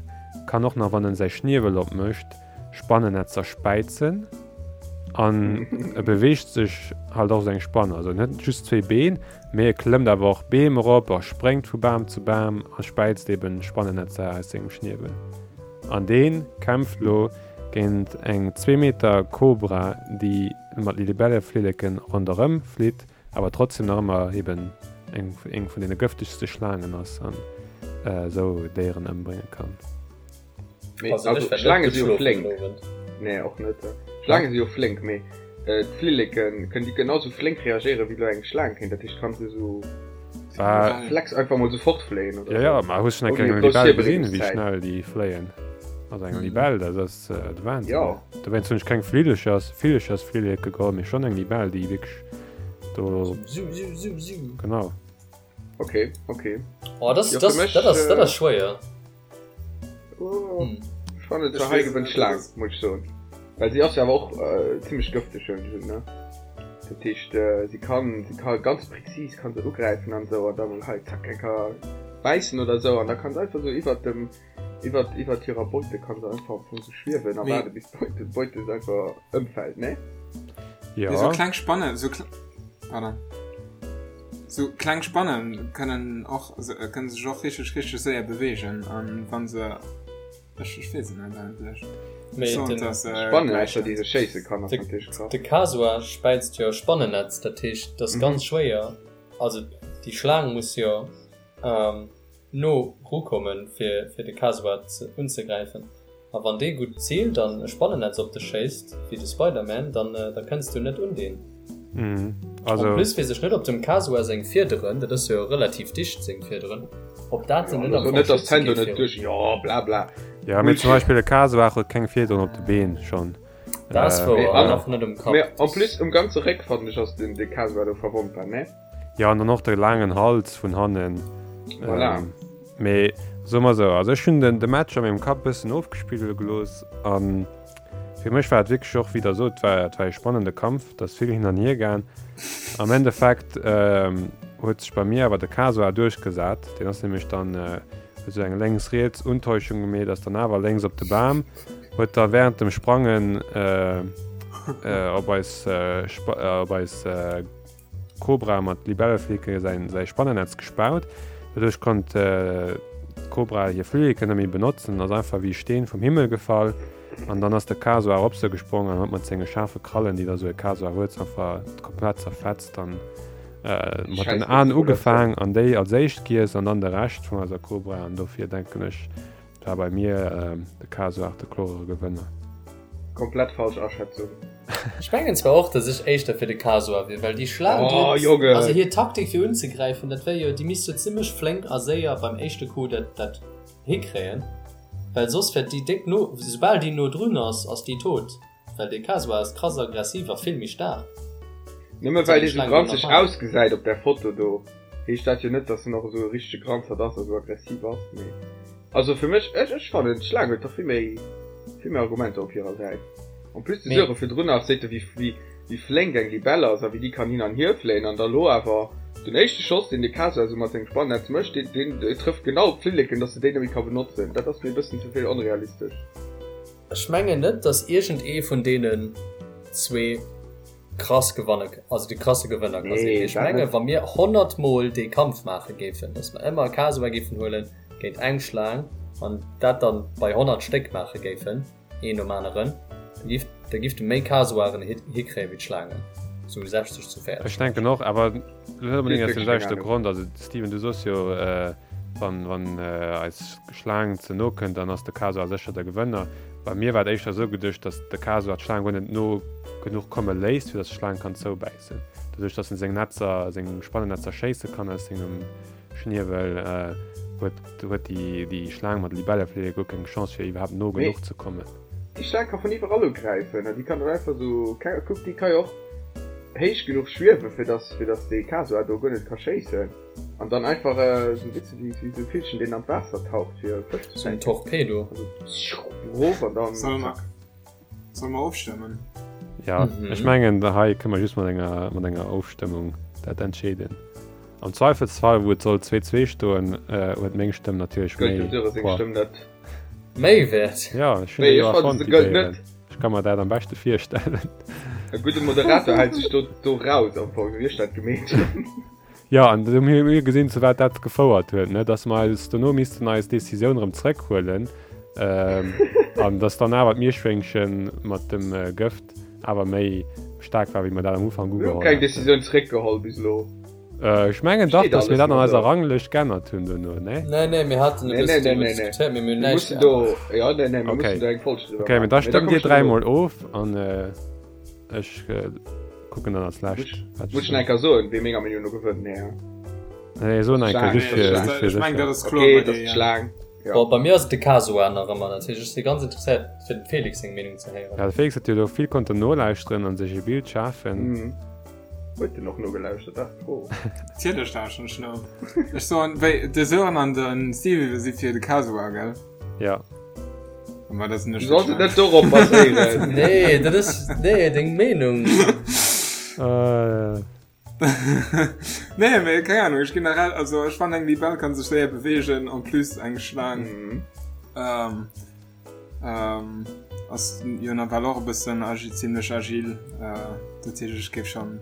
kann och nach, wann en säi Schniewel opmécht, Spannennetzer späizen an e beweegt sech halt och esou eng Spann. Also en huet net just zwéi Been, mee e klëmmt awer och Beem erop a spréngt vu Bam zu Bam a späizt eben Spannennetzer aus sengem Schniewel. An dee kämpft lo géint eng zwee Meter Kobra, déi mat Libelleflilleken ronderëm flitt, awer trotzdem nach ëmmer eben eng eng vun deene gëftegste Schlaangen ass an esou Déieren ëmbrénge kann. Mee also Schlaange si jo flénk. Nee och net. Schlaange si jo flénk, mee d'Flilleken kënnen déi genau sou flénk reagéieren wéi lo eng Schlaang kéint. Dat heescht kann se sou Flex einfach mol sou fortfléien oder? Ja, ja, ma hues schon eng Kéier eng Libell gesinn, wéi schnell déi fléien? Also eng Libell, dat ass de Wahnsinn. Ja. Dowéinst hunn ech keng Flillechers, Villechersflilleke geholl, mee schon eng Libell, déi wierklech do. Siu, siu, siu, siu. Genau. Okay, okay. Oh, das, ja, das, mich, dat ass, dat ass schwéier. Oh, hm. Ech fannen zwar hei gewënnt d'Schlaang, muss ech soen. Well si ass jo awer och äh, zimmlech gëfteg hunn ech ne. Dat heescht äh, si kann si kann ganz präzis kann se ugräifen an sou an da mol hei zack eng Kéier bäissen oder sou an da kann se einfach sou iwwert dem iwwert iwwert hirer Beute kann se einfach am Fong sou schwiewen a waarde bis d'Beute d'Beute einfach ëmfält ne? Ja. Sou kleng Spannen, sou kle pardon. Sou kleng Spannen kënnen och kënnen sech och richteg richteg séier beweegen an wann se ech ech weess et net eigentlech. Mee Soen den dass Spannen ausser déi se schéisse kann ass natierlech krass. De Kasuar späizt jo Spannennetz, dat heescht et ass ganz schwéier, also déi Schlaang muss jo no rukommen fir fir de Kasuar unzegräifen. A wann dee gutt ziilt an e Spannennetz op dech schéisst, wéi de Spider-Man, dann da kënns du net un deen. Also. En plus weess ech net op dem Kasuar seng Fiederen, dat ass jo relativ dicht seng Fiederen, ob dat en net am Fong schütze géif virun. Jo bla bla. Jo mee zum Beispill e Kasuar huet keng Fiederen op de Been schonn. Dat ass wouer, an och net um Kapp. Mee en plus um ganze Réck fannen ech ass den de Kasuar do verwonnbar, ne? Jo an dann och de laangen Hals vun hannen. Voilà. Mee soe mer esou, also ech hunn den de Match a mengem Kapp e bëssen ofgespille gelooss a fir mech war et wierklech och, wéi Der sot, war et war e spannende Kampf, et ass vill hin an hier gaang. Am Endeffekt huet sech bei mir awer de Kasuar duerchgesat, deen ass nämlech dann, huet esou eng lénks-riets Untäuschung gemeet, ass dann awer lénks op de Bam, huet da wärend dem Sprangen op eis op eis Kobra mat Libelleflilleke säin säi Spannennetz gespaut. Doduerch konnt d'Kobra hir Flilleken net méi benotzen, ass einfach wéi e Steen vum Himmel gefall. An dann ass de Kasuar op se gesprong an huet mat senge schaarfe Krallen, déi da sou e Kasuar huet, se einfach komplett zerfetzt an mat den Aen ugefaang an déi als éischt giess an dann de Rescht vun eiser Kobra. An dofir denken ech, War bei mir de Kasuar de klorere Gewënner. Komplett falsch Aschätzung. Ech mengen zwar och, dass ech éischter fir de Kasuar wier, well déi Schlaang, déi huet, also hir Taktik fir unzegräifen, dat wär jo, déi misst jo zimmlech flénk a séier beim éischte Coup dat dat hikréien, well soss wäert déi déck no, soubal déi no drun ass, ass déi tot. Well dee Kasuar ass krass aggressiv a vill méi staark. Nëmme well dee sou granzeg ausgesäit op där Foto do, heescht dat jo net, dass en och esou e richtege Granzert ass a sou aggressiv ass. Mee also fir mech, ech ech fannen d'Schlaang huet dach vill méi vill méi Argumenter op hirer Säit. En plus de Sören virdrun nach seet e wéi wéi wéi flénk eng Libell ass a wéi déi kann hin an hier fléien an da lo awer den éischte Schoss deen de Kasuar sou mat sengem Spannetz mécht, deen deen trëfft genau op d'Flilleken, dass se déi net méi ka benotzen. Dat ass mir e bëssen ze vill onrealistesch. Ech mengen net dass iergend ee vun deenen zwee krass gewanne, also de krasse Gewënner ka sinn. Mee ech menge wa mir 100 mol dee Kampf maache géifen, dass mer ëmmer e Kasuar géifen huele géint eng Schlaang an dat dann bei 100 Stéck maache géifen, een nom aneren, da giff, da giff de méi Kasuaren hikréie wéi d'Schlaangen. Sou 60 zu 40. Ech denken och, awer net onbedéngt aus dem selwechte Grond. Also Steven, du soos jo, wann, wann eis Schlaang ze no kënnt, dann ass de Kasuar sécher de Gewënner. Bei mir war et éischter esou geduecht, datt de Kasuar d'Schlaang guer net no genuch komme léisst, fir datt d'Schlaang kann zoubäissen. Doduerch, datt en seng Netzer, seng Spannennetzer schéisse kann aus sengem Schniewel, huet, huet déi, déi Schlaang mat Libelleflillek guer keng Chance, fir iwwerhaapt no genuch ze kommen. Déi Schlaang ka vun iwwerall ugräifen an déi kann dann einfach sou, kuck, déi ka jo och héich genuch schwiewen, fir dass, fir dass dee Kasuar do guer net ka schéissen an dann einfach sou, weess de, wéi sou e Villchen, deen an d'Waasser taucht, fir Fësch ze fänken. Sou en Torpedo. Also rof an dann zack. Solle mer ofstëmmen? Ja, ech mengen hei kënne mer just mat enger, mat enger Ofstëmmung dat entscheeden. Am Zweifelsfall, wou et soll 2, 2 stoen, huet meng Stëmm natierlech méi Gëllt dem Sören seng Stëmm net? Méi wäert? Ja, ech hunn déi jo erfonnt, déi Déieren. Ech ka mer dat am beschte virstellen. E gudde Moderator hält sech do, do raus am Fong, wéi ech dat gemeet hunn. Jo, an do hu mir gesinn, zu wat dat gefouert huet, ne, dass mer eis dono missten eis Decisioun erëm zrëckhuelen an dass dann awer d'Mierschwéngche mat dem Gëft awer méi staark war, wéi mer dat am Ufank ugeholl haten. Mir hu keng Decisioun zrëckgeholl bis elo. Ech mengen dach, dass mir dat an eiser Ranglëscht geännert hunn dono, nee? Nee, nee, mir haten e bëssen driwwer diskutéiert, mee mir hunn näischt geännert. Jo, nee, nee, mir mussen do eng Folg driwwer maachen. Okay, mee da stëmmt Dir dräimol of an Ech kucken dann als lescht. Muss ech nach eng Kéier soen, wee menger Meenung no gewënnt? Nee, hein? Nee, so eng Kéier, just fir, just fir Ech mengen, dat ass kloer bei dir, ja. Schlaang. Ja. Bon, bei mir ass et de Kasuar nach ëmmer. Dat heescht, ech si ganz interesséiert, fir dem Felix seng Meenung ze héieren. Ja, de Felix huet jo do vill konnten nolauschteren an sech e Bild schafen. Mhm. Huet en och nogelauschtert? Dat ass d'Fro. Natierlech lauschteren ech no. Ech soen, wéi, de Sören an de Stevie si fir de Kasuar, gell? Ja. Ma dat Du solls et net dorop baséieren. Nee, dat ass, nee, deng Meenung. Äh. Nee, mee keng Ahnung, ech generell, also ech fannen eng Libell kann sech séier beweegen, en plus eng Schlaang Mhm. ähm, ähm, ass jo nawell och e bëssen agi, zimlech agil, äh, dat heescht ech géif schon.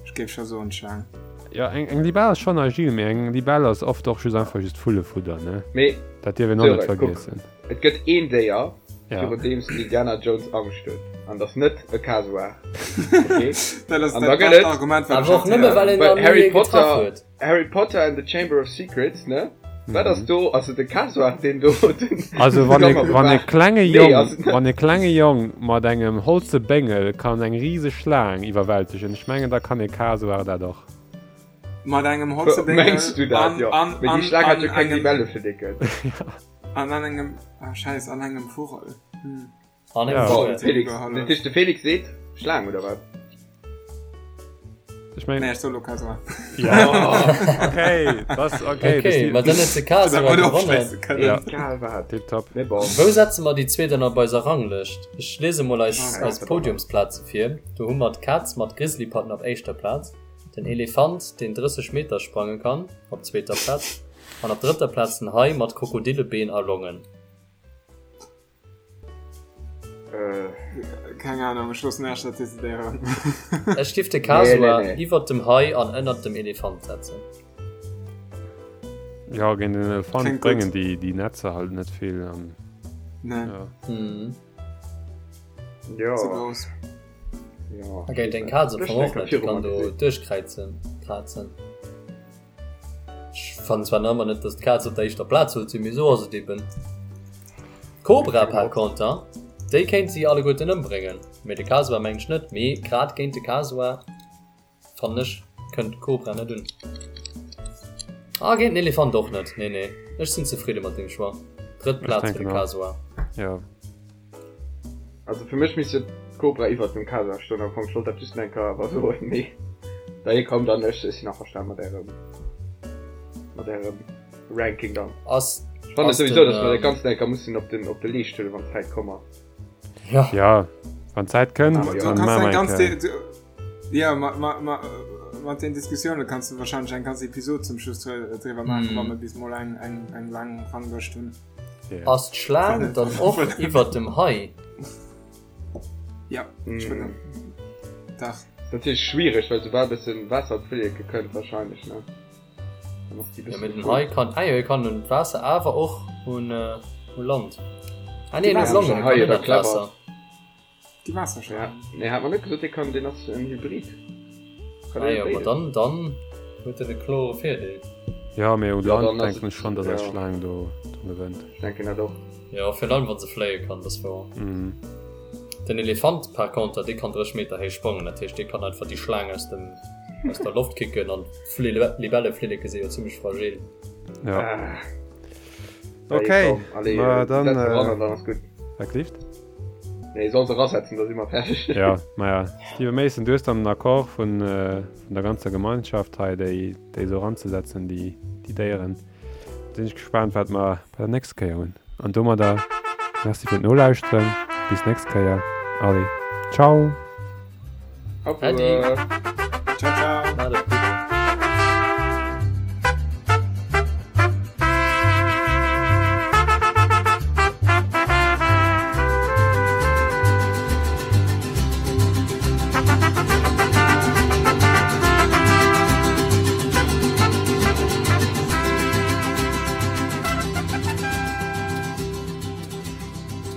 Ech géif scho soen d'Schlaang. Jo, eng, eng Libell ass schonn agil, mee eng Libell ass oft och just einfach just Vullefudder, ne? Mee Dat dierf een och net Sören, kuck, vergiessen. et gëtt een Déier, Ja. virun deem s den Indiana Jones Angscht huet, an dat ass net e Kasuar, okay? Dat ass An da dat gëtt bescht et Argument, wat ech Awer och haut nëmme héieren well hunn. een Well nach ni Harry ee getraff Potter, huet. Harry Potter and the Chamber of Secrets, ne? Wat ass do? Ass et de Kasuar, deen do den Also wann e, Gamma wann e bewaacht? klenge Nee, Jong, ass et net. wann e klenge Jong mat engem holze Béngel kann eng riseg Schlaang iwwerwältegen, ech mengen da kann e Kasuar dat och. Mat engem holze Béngel Mengs du dat? an, Jo. an, Mee déi an, Schlaang hat an jo keng engem, Libelleflicken. an an engem, ah scheiss, an engem Vugel. Hm. An Ja. engem Vogel. Felix, dat heescht de Felix seet Schlaang oder wat? Ech meng. Nee, ech soll lo Kasuar. Ja, okay, das, okay. Okay, ma dann huet de Kasuar gewonnen. Ja. Egal wat. Tipptopp. Mee bon. Wou setze mer déi zwee dann op eiser Ranglëscht? Ech liese mol eis, Ah, eis Podiumsplaze vir. Do hu mer d'Kaz mat Grizzlypatten op éischter Plaz, den Elefant, deen 30 Meter sprange kann, op zweeter Plaz an op drëtter Plaz den Hai mat Krokodillebeen a Longen. Äh. Keng Ahnung, ech loossen Iech dat decidéieren. Ech giff de Kasuar Nee, nee, nee. iwwert dem Hai an ënnert dem Elefant setzen. Ja, géint den Elefant Klingt gutt. bréngen déi, déi Netzer halt net vill. An, Nee, ja. Mhm. Ja. ze grouss. Ja. A géint eng Kaz am Ech Fong och denke net, déi viru kann mer do gesinn. duerchkräizen, krazen. Ech fannen zwar nach ëmmer net, dass d'Kaz op der éischter Plaz sollt sinn, mee esou ass et eben. D'Kobra par contre, déi kéint si alleguerten ëmbréngen, mee de Kasuar mengen ech net. Mee grad géint de Kasuar fannen ech kënnt d'Kobra net un. A géint den Elefant och net, nee nee. Ech sinn zefridde mat deem Choix. Drëtt Ech Plaz fir denken de och. Kasuar. Ja. Also fir mech misst jo d'Cobra iwwert dem Kasuar stoen am Fong. Ech wollt dat just eng Kéier awer soen, mee da jee komm dann, ech sinn averstanen mat ärem mat ärem Ranking dann. Ass Ech fannen ass souwisou, den dass mer dat ähm, Ganzt eng Kéier mussen op den op de Leescht huelen, wann d'Zäit komm ass. ja. Ja, wann d'Zäit kënnt, Ah, Du ja. dann kannst maache eng mer eng ganz Kéier. du, ja, ma, ma, ma, mat den Diskussioune kanns du wahrscheinlech eng ganz Episod zum Schluss driwwer maachen, Mm. wann mer bis mol eng eng eng laang Ranglëscht hunn. Ass d'Schlaang dann och iwwert dem Hai? Ja, ech wëll dach. Ass natierlech schwiereg, well soubal bëssen Waasser op d'Flilleke kënnt wahrscheinlech, ne? Dann ass déi Ja, bëssen mee den gefrot. Hai kann, ah jo, e kann un d'Waasser awer och un u Land. Ah nee, en huet Waasser Longen, e Hai kann oder ënnert clever. d'Waasser. Déi Waasserschlaang. Ja, nee, hat mer net gesot, dee kann, deen ass en Hybrid. Kann ah, jo, ma dann, dann huet en e klore Virdeel. Ja, mee un Land denken ech schonn, dass eis Schlaang do gewënnt. Ech denken dat och. Jo, virun allem wa se fléie kann, dat ass wouer. Den Elefant par conter, dee kann 30 Meter héich sprangen, dat heescht, dee kann einfach déi Schlaang aus dem, aus der Loft kicken an d'Libelleflilleke si jo zimmlech fragil. Ja. Ah. Okay, ma dann, äh, wat gelift? Nee, soll se rasetzen, da si mer fäerdeg. Ja, maja. Steve Mason, du hues dann den Accord vun, äh, vun der ganzer Gemeinschaft hei, déi, déi esou eranzesetzen, déi, déi Déieren. Sinn ech gespaant, wat mer bei der nächster Kéier hunn. An domadder Merci fir d'Nolauschteren. Bis nächst Kéier. Allez, ciao! Au revoir. Ciao, ciao.